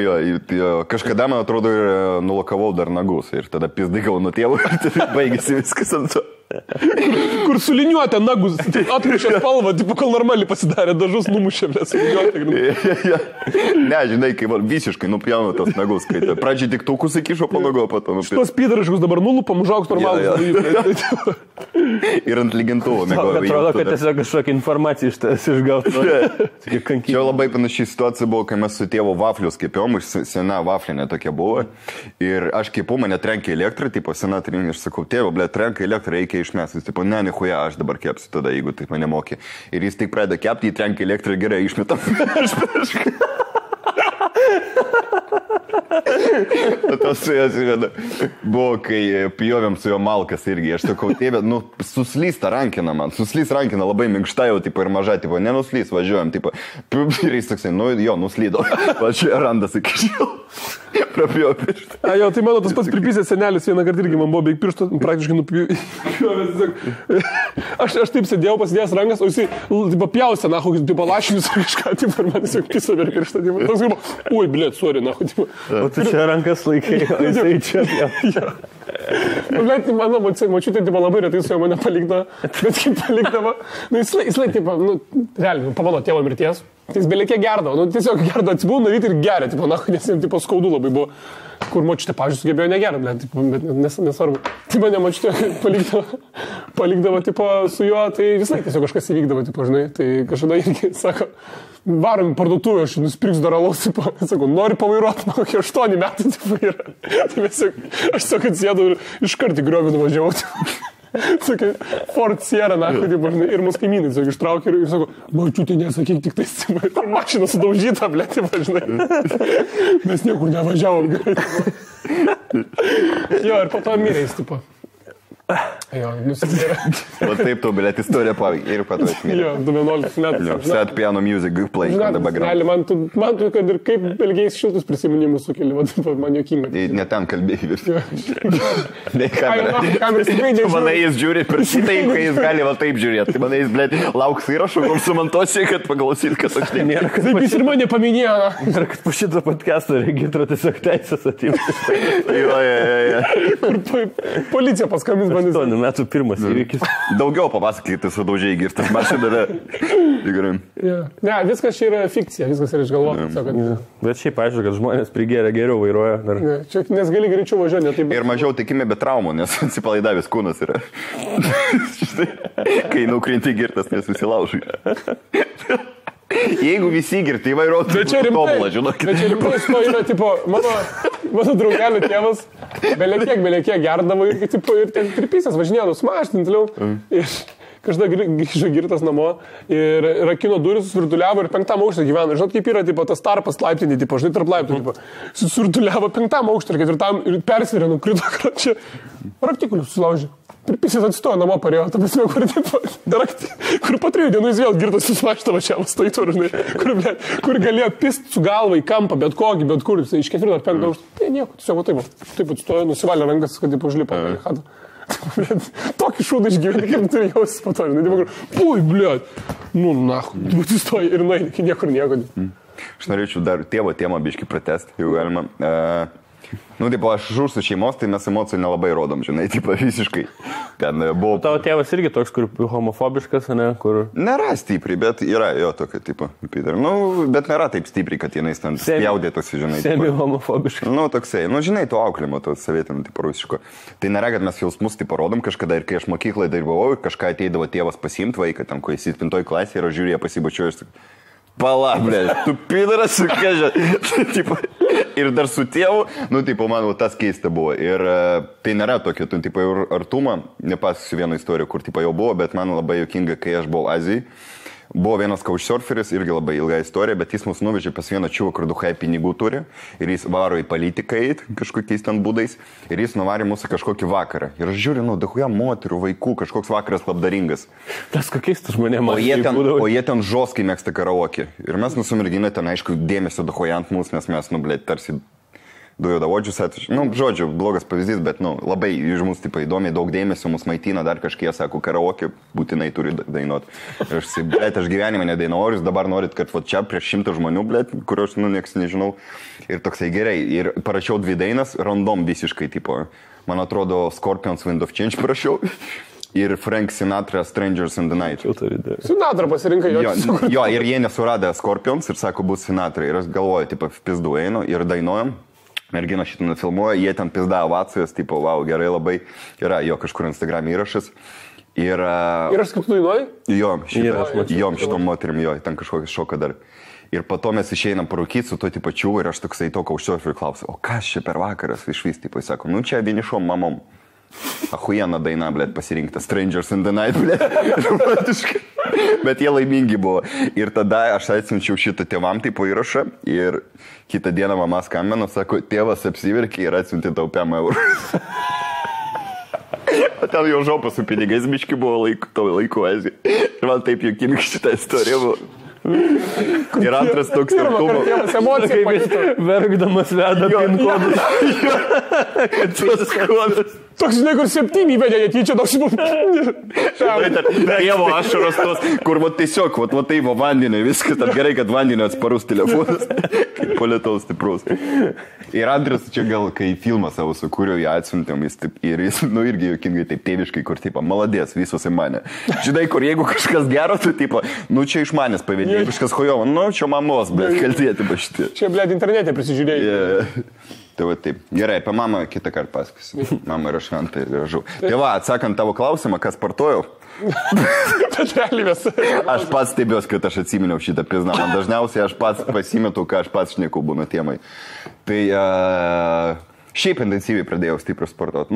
Kažkada, man atrodo, ir nulakavau dar nagus. Ir tada pizdikau nuo tėvų ir baigėsi viskas ant to. Kur suliniuotė nagus, atmušė spalvą, tipo, kol normaliai pasidarė, dažus numušė, blė, suliniuotė. Ne, žinai, kai man visiškai nupjaunu tas nagus, kai pradžiai tik taukus įkišo po nago, pato nupjaunu. Šitos pydariškus dabar nulupam, užaugs normalus. Ir ant lygintuvo mėgoju. Atrodo, kad tiesiog kažkokią informaciją iš tas išgautų. Čia labai panašiai situacija buvo, kai mes su tėvu vaflius kepėjom, sena vaflinė tokia buvo. Ir aš kepu, mane trenkė elektrą, tipo sena trinė, aš sakau, tėvo, blė, trenkė elektrą, reikia išmesti. Jis tipo, ne, nichuja, aš dabar kepsiu tada, jeigu taip mane mokė. Ir jis tik pradeda kepti, jį trenkė elektrą, gerai, išmetam. Tas su jos buvo, kai pjovėm su jo malkas irgi. Aš sakau, tėvė, suslysta rankina man. Suslys rankina labai minkšta jau, tipo, ir maža, tipo, nenuslys, važiuojam, tipo. Ir jis toksai, nuslydo. Važiuoja randas iki šiol. Prapjovė pirštą. Jo, tai mano tas pats pripysės senelis vieną kartą irgi man buvo beveik pirštą, praktiškai nupjovęs. Aš taip sėdėjau, pasidėjęs rankas, o jisai, tipo, pjausė, na, kokius, tipo, lašinius ar kažką, tipo, ir man tiesiog piso per pirštą, tipo. Toks galvo, ui, blėt, sorry, na, tipo. O tu čia rankas laikai, o jisai čia. Blėt, mano močiutė, tipo, labai retai su jo mane palikdavo, bet kaip palikdavo, jisai, tipo, realiai, po mano tėvo mirties. Jis belikė gerdavo, tiesiog gerdavo, atsibūna ryti ir geria, tipo, nes jam tipo skaudu labai buvo, kur močiutė, pavyzdžiui, sugebėjo negerti, bet nesvarbu. Tai mane močiutė palikdavo, tipo, su juo, tai visai tiesiog kažkas įvykdavo, tipo, žinai, tai kažkada irgi, sako, varom į parduotuvę, aš nusipirksiu dar alaus, tipo, sakau, nori pavairuoti, man kokie 8 metai, tipo, yra. Tai aš tiesiog atsėdau ir iškart į griovį nuvažiavau, tipo. Sakai, Ford Sierra, na, ir mūsų kaimynai, tiesiog ištraukė ir sako, mačiutė, nesakyk, tik tais, mašina sudaužyta, blėt, žinai. Mes niekur nevažiavom, gerai. Jo, ir po to mirė jis, tipo. Jo, nusimirė. O taip tu, blėt, istorija pavyzdžiui, ir pato esmė. Jo, 11 metų. Set piano music, playing on the background. Man tu, kad ir kaip belgiais šiltus prisiminimus sukeli, man jokinga. Ne ten kalbėjai vis. Ne kameras tikrai nežiūrė. Manai jis žiūri per šitai, kai jis gali va taip žiūrėti. Tai manai jis, blėt, lauks įrašų, kur sumontuosiu, kad paklausyt, kad aš nėra. Taip jis ir mane paminėjo. Ir kad po šito podcast'o regitra tiesiog teisės atimti. Kur policija paskambins. 8 metų pirmas įvykis. Daugiau papasakyti, sudaužiai girtas mašiną davė. Ne, viskas čia yra fikcija, viskas yra išgalvota. Bet šiaip aišku, kad žmonės prigėrė geriau vairuoja. Čia nes gali greičiau važiuoti. Ir mažiau tikime be traumų, nes atsipalaidavęs kūnas yra. Kai nukrinti girtas, nesusilaužai. Jeigu visi girti vairuotų, tai tobulą, žinokit. Bet čia rimtai to yra, tipo, mano draugelio tėvas belekiek gerdavo ir ten pripysęs važinėjo su mašinu toliau. Ir kažkada grįžo girtas namo ir rakino duris, susvirtuliavo ir 5 aukšte gyveno. Žinot, kaip yra, tipo, tas tarpas laiptinį, tipo, žinai, tarp laiptų, tipo, susvirtuliavo 5 aukšte ir 4 ir persvirė, nukrito, čia raktikulius susilaužė. Pripysės atstojo namo parėjo, ta prasme, kur po 3 dienų jis vėl girtas susimašta važiavo stojtų, kur galėjo pist su galva į kampą, bet kokį, bet kur, iš 4 ar 5 aukštų. Tai nieko, tiesiog taip atstojo, nusivalė rankas, kad taip užlipo. Tokį šūdą išgyventi, kaip turi jausis po to. Pui, blėt, tu stoji ir nueini, niekur nieko. Aš norėčiau dar tėvo temą biškį pratesti, jeigu galima. Tipo, aš žūsiu šeimos, tai mes emocijų nelabai rodom, žinai, tipo, visiškai. Ten buvo... Tavo tėvas irgi toks, kur homofobiškas, ne, kur... Nėra stipriai, bet yra jo tokio tipo, Peter. Bet nėra taip stipriai, kad jinai ten spjaudėtųsi, žinai. Semi homofobiškas. Toksai, žinai, to auklimo, to savietinio, tipo, rusiško. Tai nėra, kad mes jausmus, tipo, rodom kažkada ir kai aš mokyklai dalyvavau, kažką ateidavo tėvas pasiimti vaiką, ten, kai jis 7 klasėje ir aš žiūrėjau pasibučiuoju ir sakau, pala, blė, tu pidaras su kežė. Ir dar su tėvu, tipo, man tas keista buvo. Ir tai nėra tokio, tipo, ir artumą, nepasakosiu vieną istoriją, kur, tipo, jau buvo, bet man labai juokinga, kai aš buvau Azijai. Buvo vienas couchsurferis, irgi labai ilga istorija, bet jis mus nuvežė pas vieną čiūvą, kur duhai pinigų turi ir jis varo į politiką eit kažkokiais ten būdais ir jis nuvarė mūsų kažkokį vakarą. Ir aš žiūriu, duhuja moterų, vaikų, kažkoks vakaras labdaringas. Tas kokiais tu žmonėm O jie ten žoskai mėgsta karaoke. Ir mes nusimerginę ten, aišku, dėmesio duhuja ant mūsų, nes mes, tarsi dujodavodžius atvežė. Žodžiu, blogas pavyzdys, bet, labai iš mūsų, įdomiai daug dėmesio mus maitina, dar kažkiek, sako, karaoke būtinai turi dainuoti. Ir aš gyvenime nedainuoju, jūs dabar norit, kad čia prieš 100 žmonių, kur aš, nieks nežinau. Ir toksai gerai. Ir parašiau 2 dainas, random visiškai, man atrodo, Scorpions Wind of Change parašiau. Ir Frank Sinatra Strangers in the Night. Sinatra pasirinkai jo, ir jie nesuradė Scorpions ir sako, bus Sinatra. Ir aš galvoju, pizdu einu ir dainuojam. Mergina šitą nufilmuoja, jie ten pizda ovacijos, wow, gerai labai, yra jo kažkur Instagram įrašas. Ir aš kaip tu dainuoji? Jo, šitom moterim, jo, ten kažkokią šoką dar. Ir po to mes išeinam parūkyti su to pačiu ir aš toksai to couchsurferį klausiu, o kas čia per vakaras išvis, sako, čia vienišom mamom. Ahujena daina, pasirinkta Strangers in the Night, romantiškai. Bet jie laimingi buvo. Ir tada aš atsiunčiau šitą tėvam įrašą ir kitą dieną mama skambino, sako, tėvas apsiverkė ir atsiuntė tau 5 eurų. O ten jau žopas su pinigais biški buvo laiku Azijai. Ir man taip juokinga šitą istoriją buvo. Ir antras toks tarkumo. Emocija pajuto. Verkdamas veda pin kodus. Kad tas kodas. Toks, žinai, kur 7 įvedė, netyčia toks. Tėvo ašaros tos, kur tiesiog, tai vandenį, viskas, tad gerai, kad vandenį atsparus telefonas, kaip polėtaus stiprus. Ir antras, čia gal, kai filmą savo sukūriau, jį atsiuntėm, ir jis, irgi juokingai, taip tėviškai, kur, maladės, visos į mane. Žinai, kur jeigu kažkas gero, tai, čia iš manęs pavėdė, kažkas hojovo, čia mamos, kaltėti pašti. Čia, internete prisižiūrėjai. Tai va taip. Gerai, apie mamą kitą kartą pasakysiu. Mama yra šventa ir gražu. Tai va, atsakant tavo klausimą, kas sportuoju. Aš pats stebiuosi, kad aš atsiminiau šitą pizną. Man dažniausiai aš pats pasimetu, ką aš pats šneku būna temai. Tai šiaip intensyviai pradėjau stipriai sportuoti.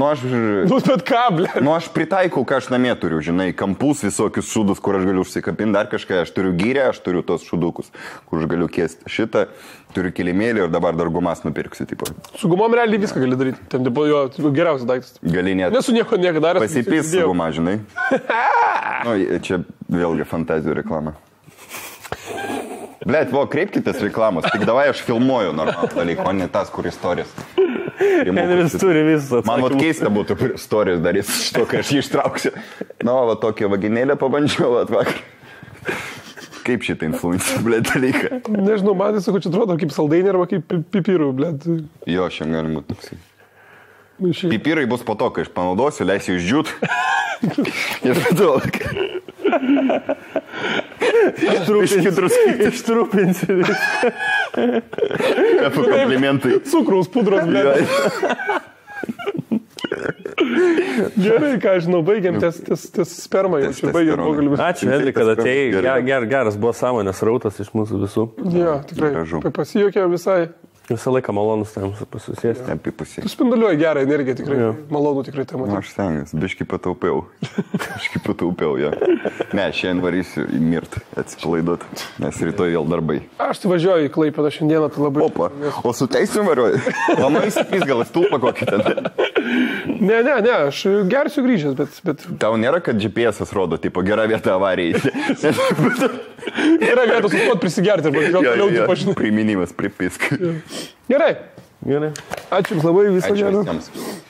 Aš pritaikau, ką aš namie turiu, žinai, kampus, visokius šūdus, kur aš galiu užsikapinti, dar kažką. Aš turiu gyrę, aš turiu tos šūdukus, kur aš galiu kėsti šitą. Turiu kilimėlį ir dabar dar gumas nupirksiu. Su gumom realiai viską gali daryti. Ten jo geriausias daiktas. Gali net. Nesu nieko daręs. Pasipys su guma, žinai. Čia vėlgi fantazijų reklama. Kreipkitės reklamos. Tik davai aš filmuoju normalų dalyką, o ne tas, kur istorijas. Henris turi visą. Man keista būtų istorijas darys šito, kai aš jį ištrauksiu. Tokią vaginėlę pabandžiau vakar. Kaip šitą influencer, dalyką? Nežinau, man tiesiog čia atrodo kaip saldainė arba kaip pipirų, Jo, šiandien gali būti toksai. Pipirai bus po to, kai aš panaudosiu, leisiu išdžiūt. Ir daug. Ištrupinsi viską. Kaip komplimentai. Cukraus pudros, Gerai, ką žinau, baigiam ties spermą. Ačiū, Henri, kad atėjai. Geras buvo sąmonės rautas iš mūsų visų. Jo, tikrai. Pasijokė visai. Visą laiką malonus tam pasusėsti. Tu spinduliuoji gerą energiją, tikrai. Malonu tikrai tam matyti. Aš stengiuosi, biškai pataupiau, jo. Ne, šiandien varysiu į mirtį, atsipalaiduoti, nes rytoj vėl darbai. Aš tai važiuoju į Klaipėdą šiandieną, tai labai... Opa, o su teisim važiuoju? Mama įsipys gal stulpą kokį ten. Ne, aš gersiu grįžęs, bet... Tau nėra, kad GPS-as rodo, gera vieta avarijai. Gera vieta sustot prisigerti, arba gal toliau tu pažinai. Priminimas, pripisk. Gerai. Gerai. Ačiū Jums labai, viso gero. Ačiū visiems.